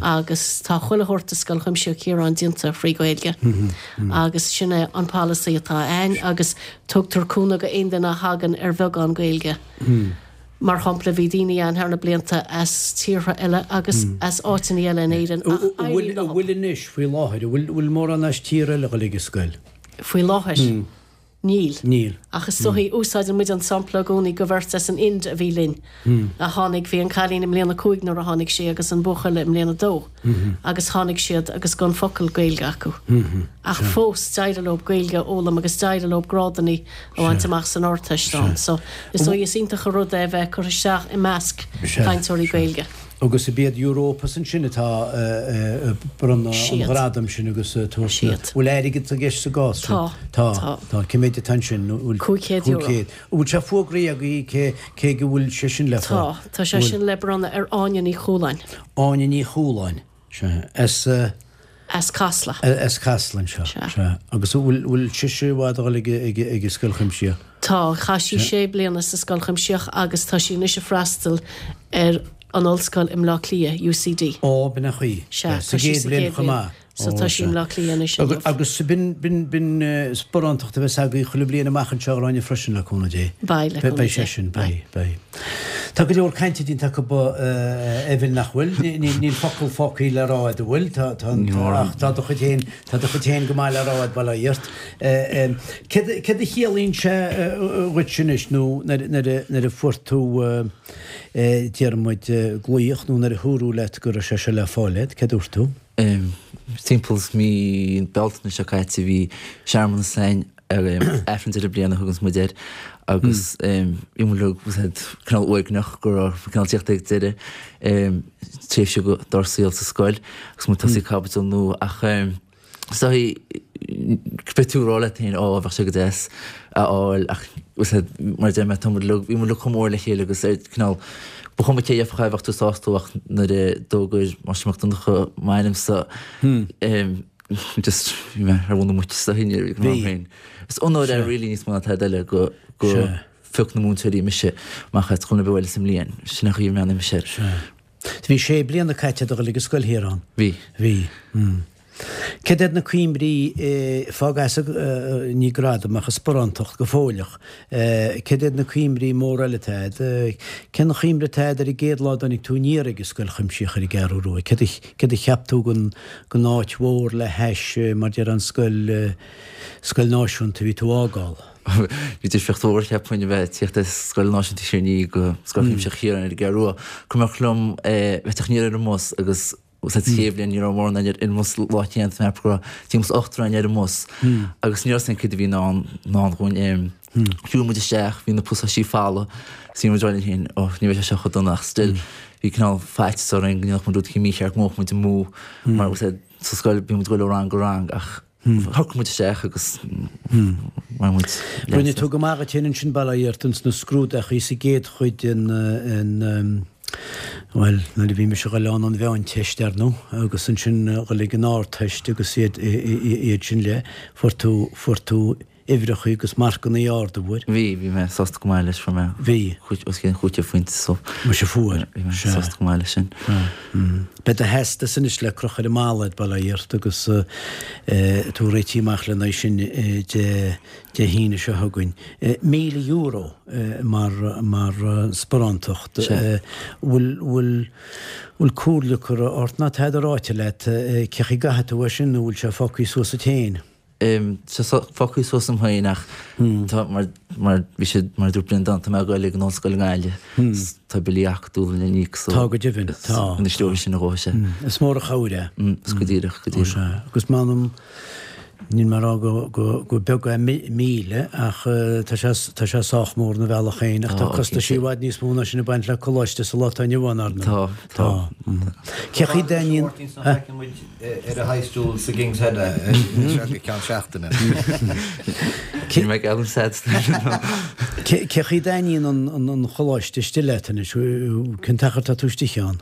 Agus tá chuile shórt i Scoil Chuimsitheach Chiaráin déanta frí Ghaeilge agus sin é an polasaí atá a'ainn agus tugtar cúnamh go aon duine a thagann ar bheagán Gaeilge. Mar shampla, bhí daoine ann thar na blianta as tíortha eile agus as áiteanna eile in Éirinn ach éiríonn leo. An bhfuil anois, faoi láthair, an bhfuil mórán as tír eile ag dul ag an scoil? Faoi láthair? Níl. Níl. Ach is dóichí, úsáideann muid an sampla i gcónaí go bheirt as an Ind a bhí linn, a tháinig, bhí an cailín i mbliain a cúig nuair a tháinig sí agus an buachaill i mbliain a dó agus tháinig siad agus gan focal Gaeilge acu. Ach fós d'éirigh leo Gaeilge a fhoghlaim agus d'éirigh leo grádanna a bhaint amach san Ardteist ann. So is dóigh is iontach an rud é a bheith curtha isteach i measc cainteoirí Gaeilge. Agus ab iad Europus ansin atá ag bronnadh an ghradaim sin agus ag tabhairt na. Bhfuil airgead i gceist sa gcás sin? Tá. Tá. Tá. Cé méid atá ansin? €500. An bhfuil sé fógraithe agaibh cé cé go bhfuil sé sin le fáil? Tá. Tá sé sin le bronnadh ar Áine Ní Chualáin. Áine Ní Chualáin. Sea. As. As Casla. As Casla anseo. Sea. Sea. Agus an bhfuil, bhfuil sise i bhfad a dhul ag, ag, ag an Scoil Chuimsitheach? Tá. Chaith sí sé bliana sa Scoil Chuimsitheach agus tá sí anois ag freastal ar an ollscoil i mBleá Cliath, UCD. Ó, b'in an chaoi. Sea. Sa gcéad bhliain chomh maith. So tá sí i mBleá Cliath anois inniu. Agus b'in, b'in, b'in sparántacht a bheas agaibh chuile bhliain amach anseo a Ghráinne freisin le cúnamh Dé. Beidh, le cúnamh Dé. Beidh sé sin, beidh, beidh. Tá go leor cainte déanta acu a Evan nach bhfuil? Níl focal fágtha le rá agat an bhfuil? Tá, tá, ach tá do chuid féin, tá do chuid féin go maith le rá agat bail ó Dhia ort. Céard, céard a chiallaíonn sé dhuit anois nó nuair, nuair a, nuair a fuair tú déarfaidh muid glaoch nó nuair a dúradh leat go raibh sé seo le fáil agat, céard a dúirt tú? Timpeall mí Bealtaine seo caite bhí searmanas againn ar Aifreann Deireadh Bliana a thuganns muid air agus bhí muid uilig cineál uaigneach go raibh cineál tíocht ag deireadh tréimhse dár saol sa scoil agus muid ag tosaí caibidil nua ach is dóigh beidh tú ag rá leat féin ó bheadh sé go deas a fháil ach mar a deir mé tá muid uilig bhí muid uilig chomh mór le chéile agus ar cineál ba chuma cé a gheofadh é bheadh tú sásta ach nuair a d'fhógair Máistir Mac Donncha m'ainmsa just bhí mé ar mhuin na muice sa thine ag an am féin. Is onóir é really níos mó ná tada eile go go phioc na múinteoirí mise amach as chuile bhealach sa mbliain. Sin an chaoi a mbreathnaíonn mise air. Bhí sé bliana caite ag dul ag an scoil thiar ann. Bhí. Bhí. Céard iad na cuimhní, fág as ní gradam ach an sparántacht go fóilleach, céard iad na cuimhní móra eile atá agat? Cén chuimhne atá agat ar an gcéad lá a dtáinig tú aniar ag an Scoil Chuimsitheach ar an gCeathrú Rua? Céard a cheap tú den áit mhór le hais, mar déarfá an scoil, scoil náisiúnta a bhí tú a fhágáil? Bhí difríocht mhór cheapfainn a bheith ag tíocht as Scoil Náisiúnta Thír an Fhia go Scoil Chuimsitheach Chiaráin ar an gCeathrú Rua. Cuimhneach liom bheith ag tíocht aniar ar an mbus agus. Sa chéad bhliain ní raibh mórán againn ar an mbus lá céanna, tá mé ag ceapadh go raibh timpeall is ochtar againn ar an mbus agus ní raibh a fhios againn céard a bhí i ndán dhúinn. Shiúil muid isteach, bhí na pasáistí folamh, is bhí muid ag rá linn féin, oh ní bheidh sé seo chomh dona ach still bhí cineál faitíos orainn go ndéanfadh muid rud éicint mícheart, go mbeadh muid amú mar sa scoil bhí muid ag dul ó rang go rang ach shocraigh muid isteach agus bhain muid leas as. Rinne tú go maith dhuit féin ansin bail ó Dhia ort ins na scrúdachaí sa gcéad chuid den bhuel, nuair a bhí mise ag dul ann an mheánteist ar ndóigh agus ansin dhul ag an ardteist agus iad iad sin le, fuair tú, fuair tú uimhreacha agus marcannaí arda, bhfuair? Bhí, bhí mé sásta go maith leis, fuair mé Bhí. os cionn 500 phointe so. Muise fuair, Bhí mé sea. sásta go maith leis sin. Beidh do theastas anois le crochadh ar an mballa a'd, bail ó Dhia ort, agus tú réitithe amach lena aghaidh sin Dé Dé hAoine seo chugainn. €1,000 mar mar sparántacht. Sea. Bhfuil bhfuil bhfuil comhairle curtha ort ná tada ráite leat cé chaoi gcaithfidh tú é sin nó bhfuil sé fágtha suas duit féin? Tá sé fágtha suas dom féin ach tá mar mar bhí siad mar a dúirt Breandán tá mé ag dul ag an ollscoil i nGaillimh is tá billí acadúla le n-íoc so Tá go deimhin, tá. Ina slí sin a dhóigh sé. Is mór an chabhair é. Is go díreach, go díreach. Ó sea. Agus m'anam níl mé ag rá go go go beag é 1,000 ach tá sé tá sé sách mór ina bhealach féin ach tá costaisí i bhfad níos mó ná sin ag baint le coláiste sa lá atá inniu ann, ar ndóigh. Tá, tá. Cé chaoi dtaitníonn. Ar a high stool sa King's Head seo go ceann seachtaine. Níl mé ag gealladh sad Cé chaoi dtaitníonn an choláiste istigh leat anois? Cén t-achar tá tú istigh ann?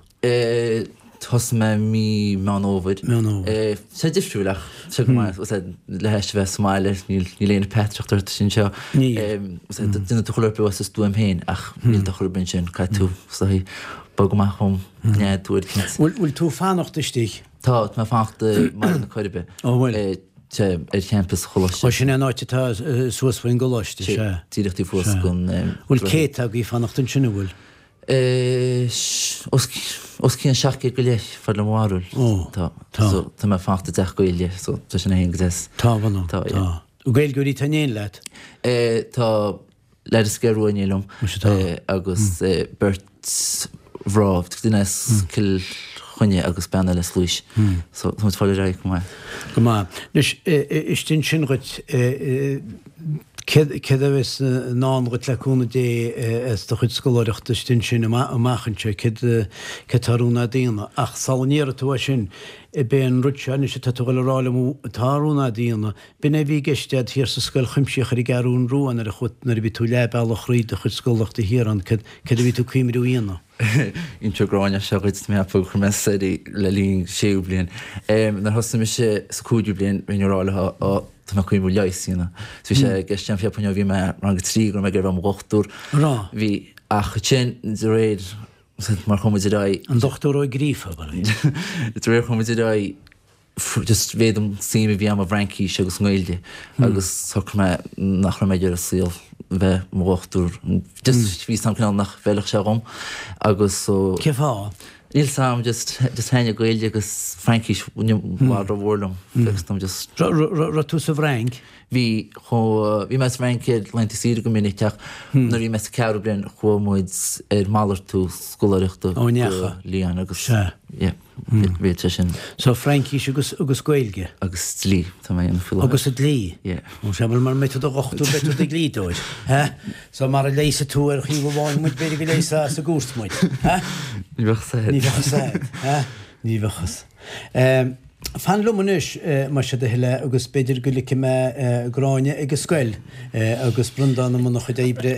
Thosaigh mé mí Meán Fhómhair. Meán Fhómhair. Tá sé difriúil ach tá sé go maith. Le hais a bheith sa mbaile níl aon peataireacht ort anseo. Níl. Déanann tú chuile rud as do stuaim féin ach níl do chur ar bith ansin. Caithfidh tú is dóigh bogadh amach ón nádúr cinnte. Bhfuil tú ag fanacht istigh? Tá, tá mé ag fanacht i mBaile na Coiribe. Ó bhfuil? Tá, ar champas Choláiste. Ó sin é an áit atá suas faoin gcoláiste, sea. Díreach taobh thuas den. Bhfuil céadta agaibh ag fanacht ansin, an bhfuil? Os cionn 700 go leith, fad le mo bharúil. Ó, tá. Tá. So, tá mé ag fanacht i dteach Gaeilge, so tá sin féin go deas. Tá, mh'anam. Tá, yeah. Tá. Gaeilgeoirí atá in éindí leat? Tá. Leaid as an gCeathrú Rua in éindí liom agus beirt mhná, duine as Cill Chainnigh agus bean eile as Laois. So tá muid ag fáil ar aghaidh go maith. Go maith. Anois, istigh ansin dhuit, céard a bheas i ndán dhuit le cúnamh Dé as do chuid scoláireachta istigh ansin amach anseo, céard atá ar rún a'd a dhéanamh? Ach sula ndéarfaidh tú é sin, b'é an rud seo anois atá tú a dhul a rá liom atá ar rún a'd a dhéanamh, B'in é a bhí i gceist a'd thiar sa scoil chuimsitheach ar an gCeathrún Rua nuair a chuaigh, nuair a bhí tú leath bealach thríd do chuid scoláireachta thiar ann, céard, céard a bhí tú ag cuimriú a dhéanamh? Inseoidh Gráinne seo dhuit, mé ag ceapadh gur chuir mé soir í le linn séú bliain. Nuair a thosaigh mise sa cúigiú bliain, bhínn ag rá leo, ó, tá mé ag cuimriú leigheas a dhéanamh. So bhí sé i gceist agam, cheapfainn ó bhí mé rang a 3 go raibh mé ag iarraidh a bheith i mo dhochtúir. Raibh? Bhí, ach ansin, de réir, mar chuaigh muid ar aghaidh. An Dochtúir Ó Gríofa, ab ea? De réir chuaigh muid ar aghaidh, just mhéadaigh an suim a bhí agam i bhFraincís agus i nGaeilge agus shocraigh mé nach raibh mé ag iarraidh saol bheith i mo dhochtúir. Just bhí 'fhios a'm cineál nach bhfeilfeadh sé dhom agus so. Cén fáth? Níl 'fhios a'm just just thaitnigh Gaeilge agus Fraincis i bhfad rómhór liom. Fios dom just. Raibh tú sa bhFrainc? Bhí chomh bhí mé sa Fhrainc ar laethanta saoire go minic ach nuair a bhí mé sa ceathrú bliain chuaigh muid ar malartú scoláireachta go Lyon agus yeah. Bhí sé sin. So Fraincis agus agus Gaeilge. Agus dlí, tá mé a dhéanamh faoi láthair. Agus an dlí? Yeah. Ó sea, bhuel mara mbeidh tú i do dhochtúir beidh tú i do dhlíodóir, ha? So mara leigheasfaidh tú ar thaobh amháin muid b'fhéidir go leigheasfá sa gcúirt muid, ha? Ní bheadh 'fhios a'd. Ní bheadh 'fhios a'd, ha? Ní bheadh 'fhios. Ehm, fan liom anois, más é do thoil é, agus b'fhéidir go ligfidh mé Gráinne ag an scoil agus Breandán i mbun a chuid oibre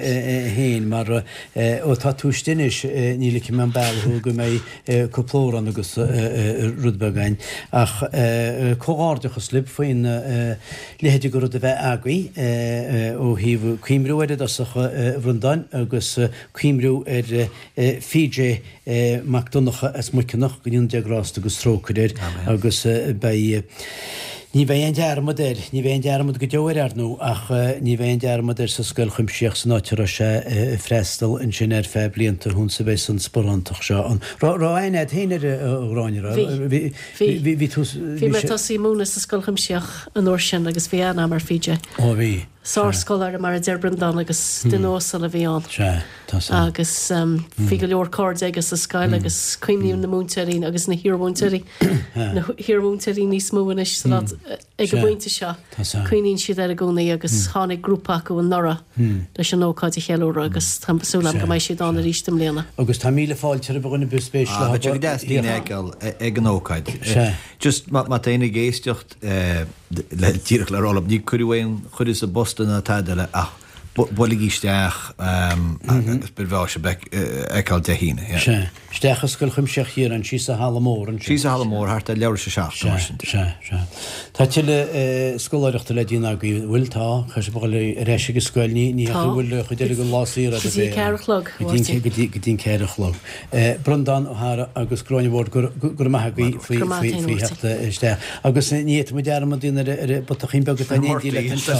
féin mar ó tá tú istigh anois ní ligfidh mé an bealach thú go mbeidh cúpla amhrán agus rud beag againn. Ach comhghairdeachas libh faoin leithéid de rud a bheith agaibh ó thaobh cuimriú air i dtosach, a Bhreandáin, agus cuimriú ar PJ Mac Donncha as Muiceanach, go ndéana Dia grásta agus trócaire air agus beidh Ní bheidh aon dearmad air, ní bheidh aon dearmad go deo air, ar ndóigh, ach ní bheidh aon dearmad air sa scoil chuimsitheach san áit a raibh sé ag freastal ansin ar feadh blianta thuns a bheidh an sparántacht seo ann. Raibh aithne agat féin air, a Ghráinne, raibh? Bhí. Bhí. Bhí, Bhí tú, Bhí mé ag tosaí múineadh sa scoil chuimsitheach an uair sin agus bhí aithne agam ar PJ. Ó bhí. Sár-scoláire mar a deir Breandán agus duine uasal a bhí ann. Sea, tá san. Agus bhí go leor cairde aige sa scoil agus cuimhníonn na múinteoirí agus na hiarmhúinteoirí, na hiarmhúinteoirí níos mó anois sa lá ag an bpointe seo, cuimhníonn siad air i gcónaí agus tháinig grúpa acu anuraidh leis an ócáid a cheiliúradh agus tá súil agam go mbeidh siad ann arís i mbliana. Agus tá míle fáilte roimh dhuine ar bith spéis leo. Beidh sé go deas daoine a fheiceáil ag an ócáid. Just má tá éinne ag éisteacht, le díreach le rá libh, ní cuireadh aon chuireadh sa bpost ná tada eile ach buailigí isteach agus ba bhreá sibh a fheiceáil Dé hAoine. Yeah. Sea. Isteach i Scoil Chuimsitheach Chiaráin, síos sa halla mór ansin. Síos sa halla mór, thart ar leathuair tar éis a 7 nó mar sin de. Sea, sea. Tá tuilleadh scoláireachta le déanamh agaibh, an bhfuil? Tá. Caithfidh sibh a dhul ar ais ag an scoil, ní ní hea go bhfuil an chuid eile den lá saor agaibh. Go dtí a ceathair a chlog, a Mháirtín. Go dtí go dtí an ceathair a chlog. Breandán Ó hEára agus Gráinne Ward, go raibh maith agaibh faoi theacht isteach. Agus ní fhéadfaidh muid dearmad a dhéanamh ar an bputachín beag atá in éindí leat anseo.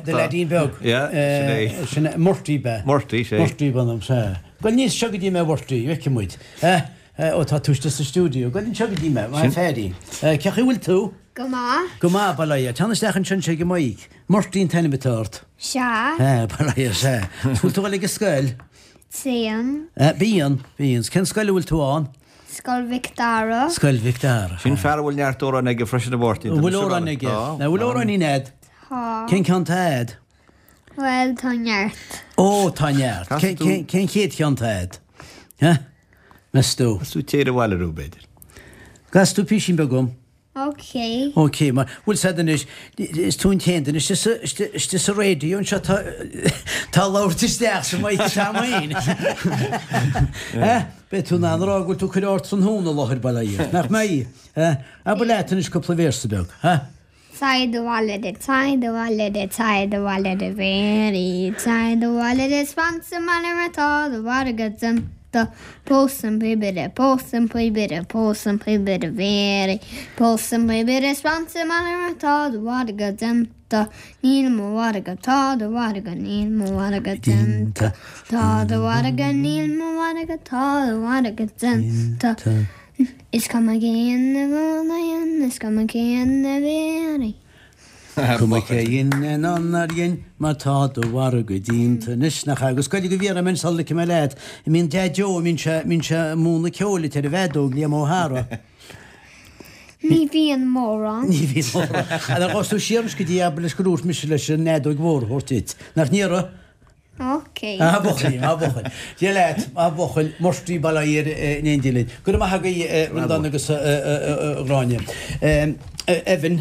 Do leaidín beag. Sin é Murty ab ea? Murty, sea. Murty ab ainm, sea. Gabh aníos anseo go dtí mé, Murty, feicfidh muid. Ó, tá tú istigh sa stiúideo. Gabh anseo go dtí mé, a fheairín. Cén chaoi a bhfuil tú? Go maith. Go maith, bail ó Dhia. Teann isteach anseo ag an mic. Murty an t-ainm atá ort. Sea. Bail ó Dhia, sea. Bhfuil tú ag dul ag an scoil? Téim. Bíonn, bíonn. Cén scoil a bhfuil tú ann? Scoil Mhic Dara. Scoil Mhic Dara. Sin fear a bhfuil neart amhrán aige freisin a Mháirtín. An bhfuil amhrán aige? Tá. An bhfuil amhráinín a'd? Tá. Cén ceann tá a'd? Bhuel, tá neart. Ó, tá neart. Cén chéad cheann tá a'd? Meas tú? Casadh tú Téir Abhaile Arú, b'fhéidir. Casfaidh tú písín beag dhom. Ok. Ok, mar, bhfuil 's a'd anois, is tú an t-aon duine istigh sa, istigh, istigh sa raidió anseo atá, atá ag labhairt isteach sa mic atá a'm fhéin. Eh? Beidh tú in ann a rá go bhfuil tú ag cur ardtráthnóna i láthair, bail ó Dhia ort, nach mbeidh? Eh? Abair leat anois cúpla véarsa beag, eh? Téir abhaile de, téir abhaile de, téir abhaile de Mhary, téir abhaile de 's fan sa mbaile mar tá do mhargadh déanta. Pós an píobaire, pós an píobaire, pós an píobaire Mhary, pós an píobaire 's fan sa mbaile mar tá do mhargadh déanta. Níl mo mhargadh, tá do mhargadh, níl mo mhargadh déanta. Tá do mhargadh, níl mo mhargadh, tá do mhargadh déanta. Is cuma cén a dhein, is cuma cén a bhí. Cuma cé dhein ná nár dhein, mar tá do mhargadh déanta anois, nach ea? Agus goidé go bhfiafraí mé sula ligfidh mé leat, an mbíonn Deaid Joe, an mbíonn sé, mbíonn sé ag múineadh ceoil duit ar an bhfeadóg, Liam Ó hEára? Ní bhíonn mórán. Ní bhíonn mórán. Ar ghabh tú siar anois go dtí abair leis gur dhúirt mise leis an fheadóg mhór a thabhairt duit, nach n-iarraidh? Ok. A bhuachaill, a bhuachaill. Dia leat, a bhuachaill, Murty bail ó Dhia air in éindí linn. Go raibh maith agaibh, a Bhreandáin agus a Ghráinne. Evan,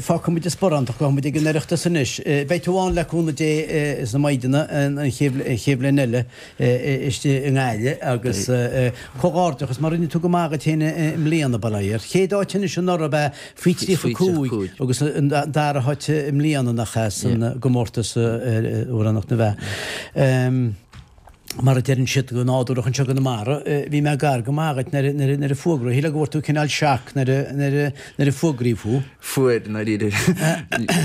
fágfaidh muid an sparántacht, gabhfaidh muid ag an Oireachtas anois. Beidh tú ann le cúnamh Dé sna maighdeana an chéad bhliain eile istigh i nGaillimh agus comhghairdeachas mar rinne tú go maith dhuit féin i mbliana, bail ó Dhia ort. Chéad áit anois anuraidh ab ea Faoi 35 agus an dara háit i mbliana nach ea san gcomórtas Amhránaíocht na bhFeá. Mar a deireann siad go nádúrach anseo i gConamara, bhí mé gar go maith dhuit nuair a fuagraíodh, shílfeá go bhfuair tú cineál shock nuair a fuagraíodh thú. Fuair, i ndáiríre.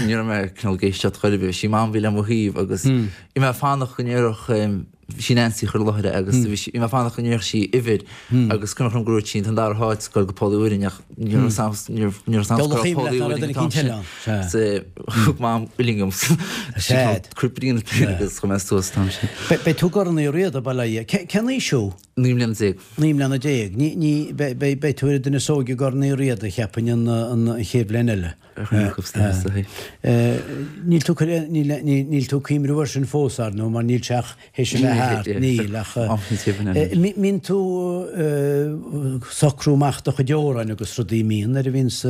Ní raibh mé cineál ag éisteacht chor ar bith. Sí Mam a bhí le mo thaobh agus bhí mé ag fanacht go ndéarfadh Sí Nancy a chuir i láthair é agus bhí sí, bhí mé ag fanacht go ndéarfadh sí uimhir agus cuimhneach liom gur dhúirt sí an dara háit ag goil go Poll Uí Mhuirinn ach ní raibh 's a'm, ní raibh, ní raibh 's a'm go raibh Poll Uí Mhuirinn an t-am sin. So thug Mam uillinn dhom. Cuir brí ina taobh agus chuir mé suas an t-am sin. Beidh tú i gCorn Uí Riada, bail ó Dhia. Cén aois thú? 19 mbliana. 19 mbliana. Ní, ní, beidh, beidh tú ar an duine is óige i gCorn Uí Riada, cheapfainn, an, an chéad bhliain eile. Níl tú níl tú ag cuimhniú air sin fós, ar ndóigh, mar níl sé ach théis a bheith thart, níl, ach mbíonn tú ag socrú amach do chuid amhráin agus rudaí, mbíonn, nuair a bhíonns,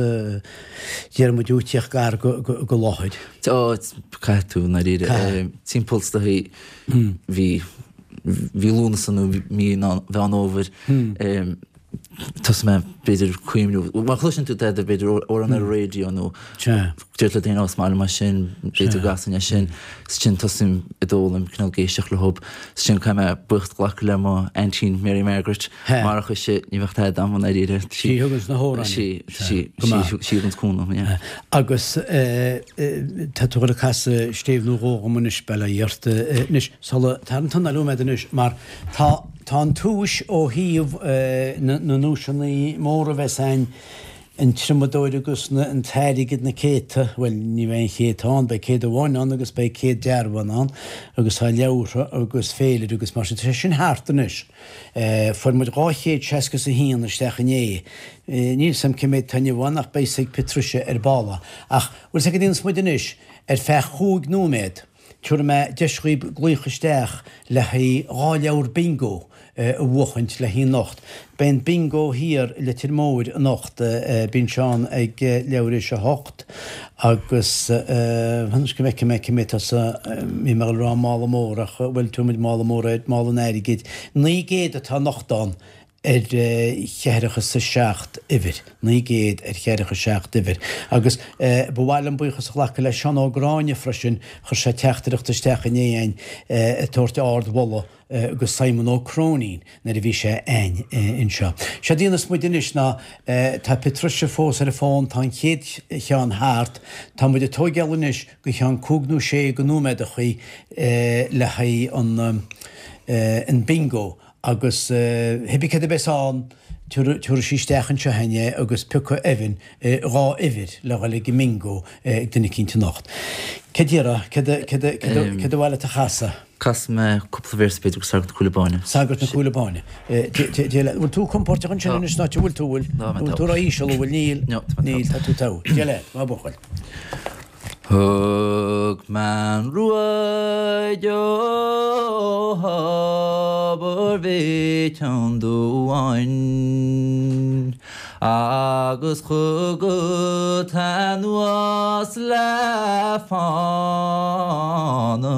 déarfaidh muid, ag tíocht gar go láthair. Ó, caithfidh tú, i ndáiríre. Timpeall is dóichí mhí mhí Lúnasa nó mí Mheán Fhómhair. Thosaigh mé, b'fhéidir, cuimhniú, má chloiseann tú tada, b'fhéidir, amhrán ar an raidió nó deir le daoine, ó, is maith liom é sin, b'fhéidir go gcasfainn é sin. Is ansin tosaím ag d'fhoghlaim, cineál ag éisteacht leo. Is ansin caithfidh mé buíochas a ghlacadh le mo aintín Mary Margaret. Marach ise, ní bheadh tada agam i ndáiríre. Sí a thuganns na hamhráin. Sí, sí, sí a thuganns cúnamh, yeah. Agus tá tú ag dul ag casadh stéibh nó dhó dhom anois, bail ó Dhia ort. Anois, sula, tar an t-anáil uaim anois, mar Tá, tá an tomhas ó thaobh na nduaiseanna móra a bheas a'inn. An triomadóir agus an t-airgead, na céadta, bhuel, ní bheidh aon chéadta ann, beidh 100 amháin ann agus beidh 100 dearbhán ann agus tá leabhartha agus féilire agus mar sin. Tá sé sin thart anois. Fuair muid 261 isteach inné. Níl 's a'm cé méid atá inniu ann ach beidh 's ag Patricia ar ball. Ach bhfuil 's a'd cad a dhéanfas muid anois, ar feadh chúig nóiméad, Tabharfaidh mé deis dhaoib glaoch isteach le haghaidh 2 leabhar bingo a bhuachaint le haghaidh anocht. Beidh an bingo thiar i Leitir Móir anocht, bíonn sé ann ag leathuair théis a hocht agus anois go bhfeicfidh mé cé méid atá sa, bhí mé ag dul a rá mála mór ach bhuel tabharfaidh muid mála mór air, mála an airgid. 900 atá anocht ann ar cheathracha is a seacht uimhir, 900 ar cheathracha seacht uimhir. Agus ba mhaith liom buíochas a ghlacadh le Seán Ó Gráinne freisin, chuir sé teachtaireacht isteach inné a'inn ag tabhairt ard-mholadh go Simon Ó Cróinín nuair a bhí sé a'inn anseo. Séard a dhéanfas muid anois ná, tá Patricia fós ar an bhfón, tá an chéad cheann thart, tá muid ag tóigeáil anois go cheann cúig nó sé go nóiméadachaí le haghaidh an bingo Agus hibí céard a bheas ann, tabharfaidh sí isteach anseo a'inn é agus piocfaidh Evan 2 uimhir le dhul ag an mbingo ag duine eicínt anocht. Céard déarfá? Céard a, céard a, céard a, céard a mhaith leat a chasadh? Casfaidh mé cúpla véarsa b'fhéidir go Sagart na Cúile Báine. Sagart na Cúile Báine. Dé leat. Bhfuil tú compóirteach ansin anois ná bhfuil tú, bhfuil? Tá mé Bhfuil tú ró-íseal, an bhfuil? Níl. No, tá mé Níl, tá tú togha. Dé leat, maith buachaill. Thug mé an ruaig ó Thobar Mhic an Dúbháin agus chugat anuas le fána.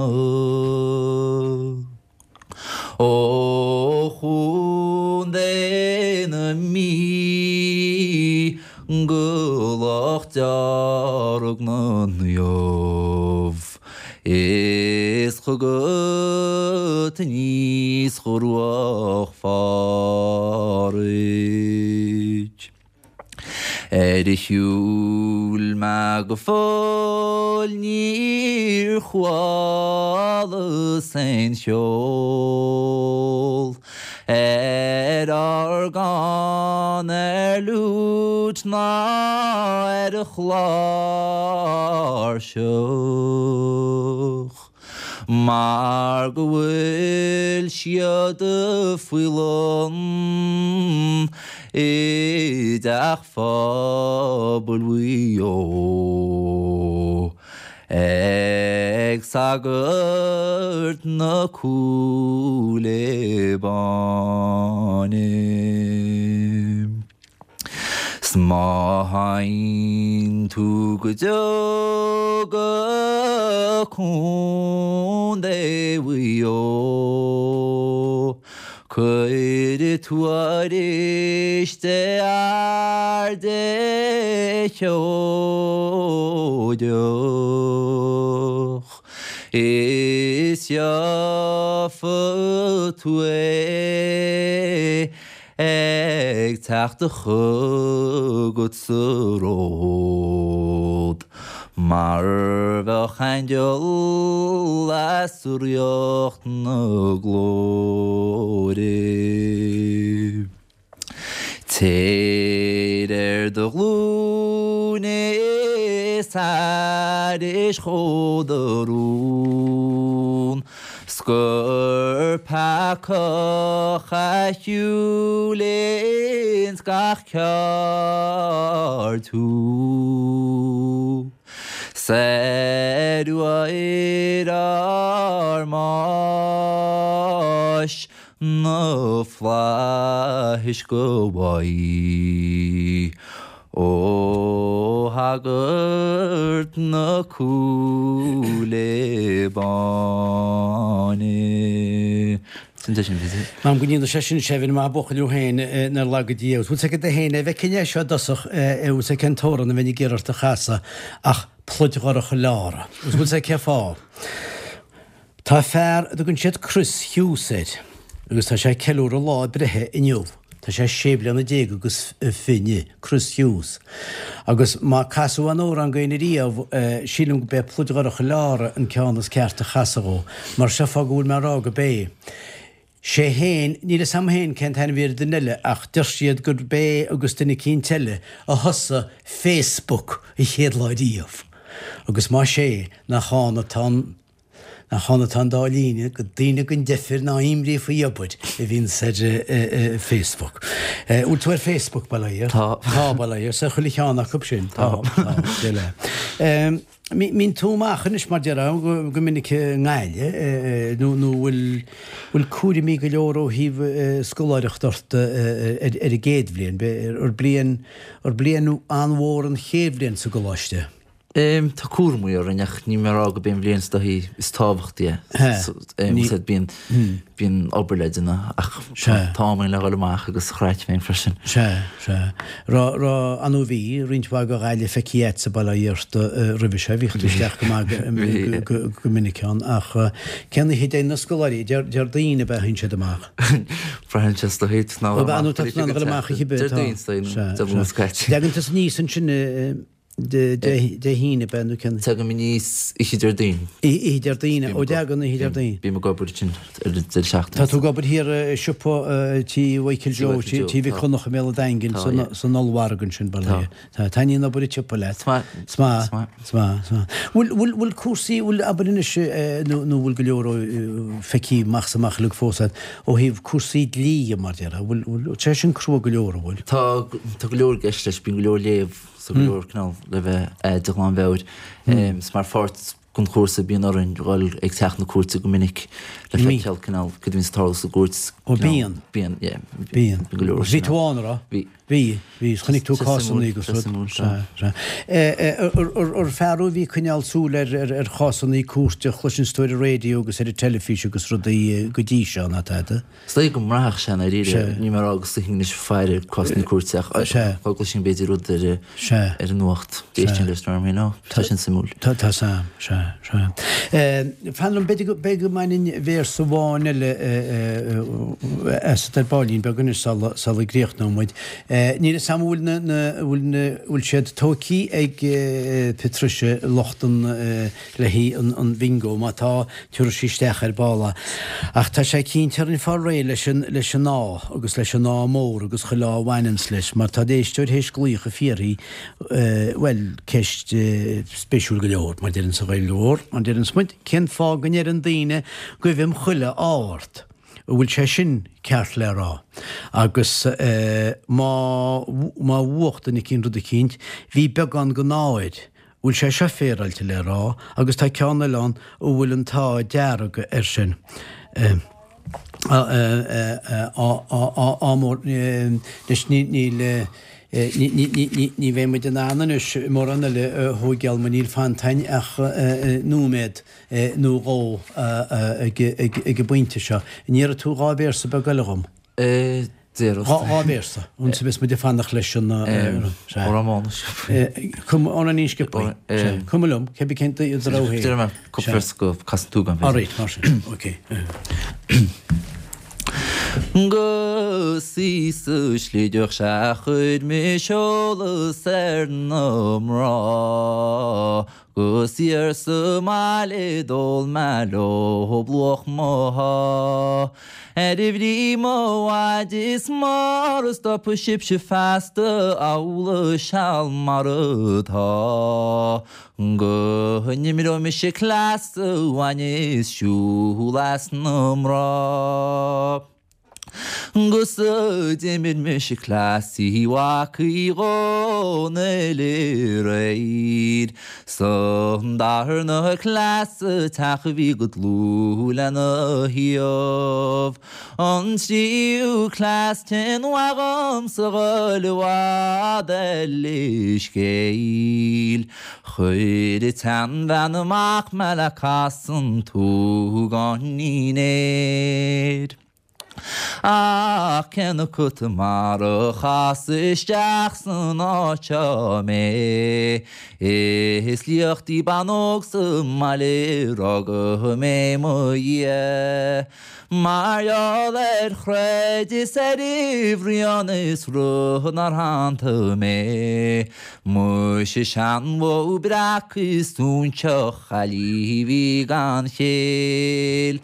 Ó Chontae na Mí go Loch Dearg na Naomh is chugat aníos go Ruach Phádraig. Ar shiúil mé go fóill níor chualas aon cheol ar orgán, ar fhliúit ná ar chláirseach. Mar go bhfuil siad faoi lán i dteach phobail Mhaigh Eo ag sagart na Cúile Báine. 'S má théann tú go deo go Contae Mhaigh Eo, cuir tuairisc do fhear Dé sheoideach, is gheofa tú é. Ag teacht chugat sa ród mar bheadh aingeal as ríocht na glóire. Téir ar do ghlúine is aithris dhó do rún. 'S gur peacach a shiúil ins gach ceárd thú. 'S ar uair ár mbáis na flaithis go bhfaighidh Ó shagart na Cúile Báine. Sin é sin, b'fhéidir. M'anam go ndéana sé sin Evan, maith an buachaill thú féin, nár laga Dia thú. Bhfuil 's agat féin, a bhfeicfinn é seo i dtosach, bhfuil 's agat cén t-amhrán a bheinn ag iarraidh ort a chasadh ach Pluid Dhorcha Leára. Agus bhfuil 's agat cén fáth? Tá fear a dtugann siad Chris Hughes air agus tá sé ag ceiliúradh lá a breithe inniu. Tá sé sé bliana déag agus fiche, Chris Hughes. Agus má casadh aon amhrán go éinne riamh, sílim go b'é Pluid Dhorcha Leára an ceann is ceart a chasadh dhó. Mar seo fáth go bhfuil mé ag rá go b'é. Sé fhéin, níl fhios a'm fhéin cén t-ainm a bhí ar an duine eile ach deir siad gurb é agus duine eicínt eile a thosaigh Facebook an chéad lá riamh. Agus más é, nach ann atá an, nach ann atá an dá líne go daoine den deifir ná imní faoi obair a bhíonns ar Facebook. Bhfuil tú ar Facebook, bail ó Dhia? Tá. Tá, bail ó Dhia, 's ar chuile cheann acu sin. Tá, tá, deile. Mbíonn tú amach anois mar déarfá go minic i nGaillimh nó nó bhfuil bhfuil cúraimí go leor ó thaobh scoláireacht ort ar an gcéad bhliain, ar bliain ar bliain an-mhór an chéad bhliain sa gcoláiste? Tá cúraimí orainn ach níl mé ag rá gurb é an bhliain is dóichí is tábhachtaí é. Bíonn Bíonn obair le déanamh ach tá am againn le dhul amach agus craic féin freisin. Sea, sea. Raibh, raibh, ar ndóigh bhí roinnt mhaith de Ghaillimh feicthe agatsa bail ó Dhia ort roimhe seo, bhíodh tú isteach go maith go, go minic ann ach cén oíche a dtéann na scoláirí, Déardaoin ab ea a théann siad amach? Braitheann sé is dóichí, ná dhul amach a chibé, tá. Déardaoin is dóichí, Dé Luain is caite. Dtagann tusa aníos ansin i. Dé hAoine ab ea nó cén? Tagaim aníos oíche Déardaoin. Oíche Déardaoin, ó dtagann oíche Déardaoin. Bím ag obair ansin ar an deireadh seachtaine. Tá tú ag obair thiar i siopa tí Mhichael Joe, tí Mhic Dhonncha i mBéal an Daingin, san ollmhargadh ansin, bail ó Dhia. Tá. Taitníonn obair an tsiopa leat. Is maith. Is maith. Is maith. Is maith. Bhfuil, bhfuil, bhfuil cúrsaí, bhfuil, abair anois, nó, nó bhfuil go leor feicthe amach is amach uilig fós agat ó thaobh cúrsaí dlí dhe, mar déarfá, bhfuil, bhfuil sé sin crua go leor, an bhfuil? Tá, tá go leor i gceist leis, bíonn go leor léamh. So go leor cineál le bheith de ghlanmheabhair. Is mar pháirt den chúrsa bíonn orainn dhul ag teach na cúirte go minic le feiceáil cineál cad a bhíonns ag tarlú sa gcúirt. Ó bíonn. Bíonn, yeah. Bíonn. Bíonn go leor. Bhí tú ann, an raibh? Bhí. Bhí, bhí. Chonaic tú cásanna agus rud. Sea, sea. Ar fear thú a bhí ag coinneáil súil ar chásanna cúirte a chloiseanns tú ar an raidió agus ar an teilifís agus rudaí go dtí seo, ná tada? Is dóigh go mbraithfeadh sé i ndáiríre. Níl mé ag rá go suífinn anois ag faire cásanna cúirte ach dá gcloisfinn b'fhéidir rud ar ar an nuacht. D'éistfinn leis mar you know, tá sin suimiúil. Tá tá sea, sea, sea. Fan liom, b'fhéidir go b'fhéidir go mbainfinn véarsa amháin eile asat ar baillín beag anois sula sula gcríochnóidh muid. Níl fhios a'm an bhfuil na na bhfuil na bhfuil siad tóigthí ag Patricia lucht an le haghaidh an bhingo, má tá, tabharfaidh sí isteach ar ball é. Ach tá sé cinnte orainn fáil réidh leis an, leis an ádh, agus leis an ádh mór agus chuile ádh a bhaineanns leis, mar tá éisteoir théis glaoch ag fiafraí, bhuel, ceist spéisiúil go leor, mar deireanns an Ghaeilge Mhór, mar deireanns muid, cén fáth go ndeireann daoine guibhim chuile ádh ort? An bhfuil sé sin ceart le rá? Agus má, má bhuach duine eicínt rud eicínt, bhí beagán den ádh air, bhfuil sé seo féaráilte le rá agus tá ceann eile ann a bhfuil an t-ádh dearg air sin. Ádh mór anois níl ní bheidh muid in ann anois mórán eile a thóigeáil mar níl fanta againn ach nóiméad nó dhó ag an bpointe seo. An iarrfaidh tú dhá véarsa beag eile dhom? Déarfas. Dhá véarsa. Ansin beidh muid ag fanacht leis an. Amhrán Mánais. Amhráinín sciobtha. Cuma liom, cé bith cén do rogha féin. Déarfaidh mé cúpla véarsa go Casann tú agam. Alright, mar sin. Ok. 'Gus í sa Sligeach sea chuir mise eolas ar na mná 'Gus thiar sa mbaile d'ól mé leob luach mo shá. Ar bhrí mo mhaide is mara stopfaidh sibhse feasta amhlaidh seal mar atá. Go n-imreoidh mise cleas a bhaineas siúl as na mná. 'Gus d'imir mise cleas Uí Mhac Uí Dhónaill aréir 'S an darna cleas sa teach a bhí go dlúth lena thaobh. An tríú cleas cén mhaith dhomsa dhul i bhfad ar leithscéal. Chuir an tseanbhean amach mé le casan tuagáinín aeir. Ach cén acu mar a chasadh isteach san áit seo mé, is liacht í bean óg sa mbaile a rugadh mé mo dhiaidh. Mar gheall ar chreid is ar bhruíon is rud nár shantaigh mé. Muise seanbhó breac is óinseach chaillí a bhí gan chéill.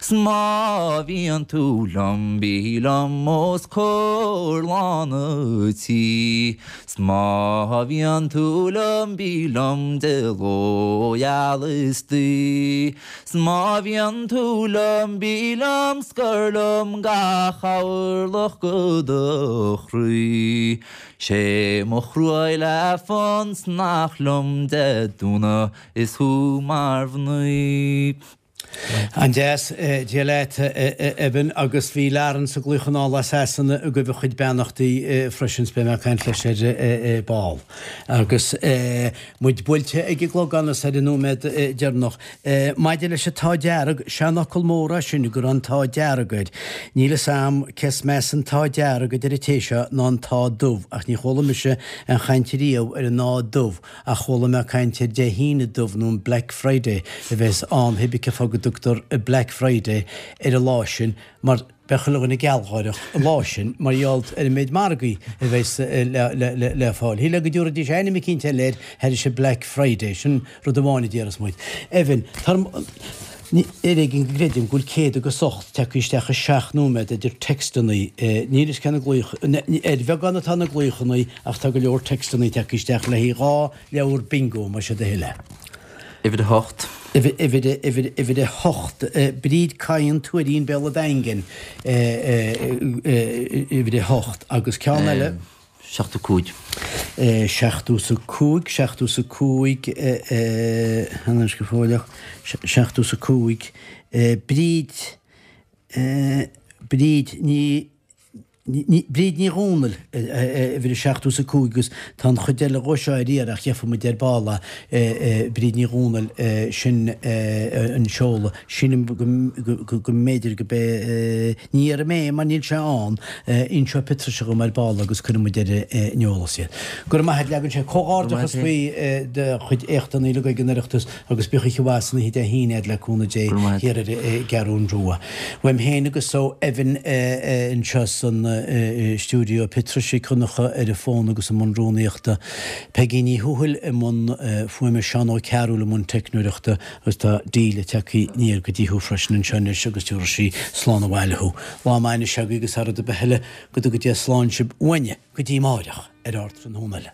'S má bhíonn tú liom bí liom os comhair lán a' tí 'S má bhíonn tú liom bí liom de ló gheal is d'oíche 'S má bhíonn tú liom bí liom 's cuir liom gach orlach go do chroí 'Sé mo chroí le fonn 's nach liom de dúnadh is thú mar mhnaoi. An-deas, Dia leat, a Evan, agus bhí Laurence ag glaoch anall as Sasana ag gabh a chuid beannachtaí freisin, 's beidh mé ag caint leis ar ball. Agus muid buailte ag an gclogán is ar an nóiméad deireanach. Maidir leis an t-ádh dearg, seanfhocal mór é sin go raibh an t-ádh dearg air. Níl fhios a'm cé is measa an t-ádh dearg a deir an té seo ná an t-ádh dubh ach ní chuala mise aon chaint riamh ar an ádh dubh ach chuala mé caint ar Dé hAoine dubh nó an Black Friday a bheas ann pé bith cén fáth go dtugtar Black Friday ar an lá sin mar beidh chuile dhuine gealgháireach an lá sin mar gheall ar an méid margaí a bheas le fáil. Shílfeá go dtabharfaidís ainm eicínt eile air thairis an Black Friday, sin rud amháin a déarfas muid. Evan, ar éigean go gcreidim go bhfuil 108 tagtha isteach i seacht nóiméad idir textannaí, níl fhios cé na glaoch, ar bheagán atá na glaochannaí ach tá go leor textannaí tagtha isteach le haghaidh 2 leabhar bingo más é do thoil é. Uimhir 8. Uimhir, uimhir, uimhir 8. Bríd Cadhain, Tuairín, Béal an Daingin, uimhir 8. Agus ceann eile. 75. 75, 75, anois go fóilleach, 75, Bríd, Bríd Ní, Bríd Ní Dhomhnaill, uimhir 75 agus tá an chuid eile dhó seo ar iarraidh ach gheobhaidh muid ar ball é, Bríd Ní Dhomhnaill, sin an seoladh. Sílim go mb'fhéidir go b'é, ní dhéarfaidh mé mar níl sé ann, inseoidh Patricia dhom ar ball agus cuirfidh muid ar an eolas iad. Go raibh maith a't, leagann sé comhghairdeachas faoi do chuid éachtanna uilig ag an Oireachtas agus bíodh oíche mhaith san oíche Dé hAoine a'd le cúnamh Dé thiar ar an gCeathrún Rua. Uaim féin agus ó Evan anseo san stiúideo, Patricia Nic Dhonncha ar an bhfón agus i mbun rúnaíochta, Peigí Ní Thuathail i mbun fuaime, Seán Ó Cearúil i mbun teicneoireachta agus tá Delia tagtha aniar go dtí thú freisin anseo anois agus tabharfaidh sí slán abhaile thú. Lá maith anois agaibh agus thar rud ar bith eile, go dtuga Dia slán sibh uainne go dtí amáireach ar Ardtráthnóna eile.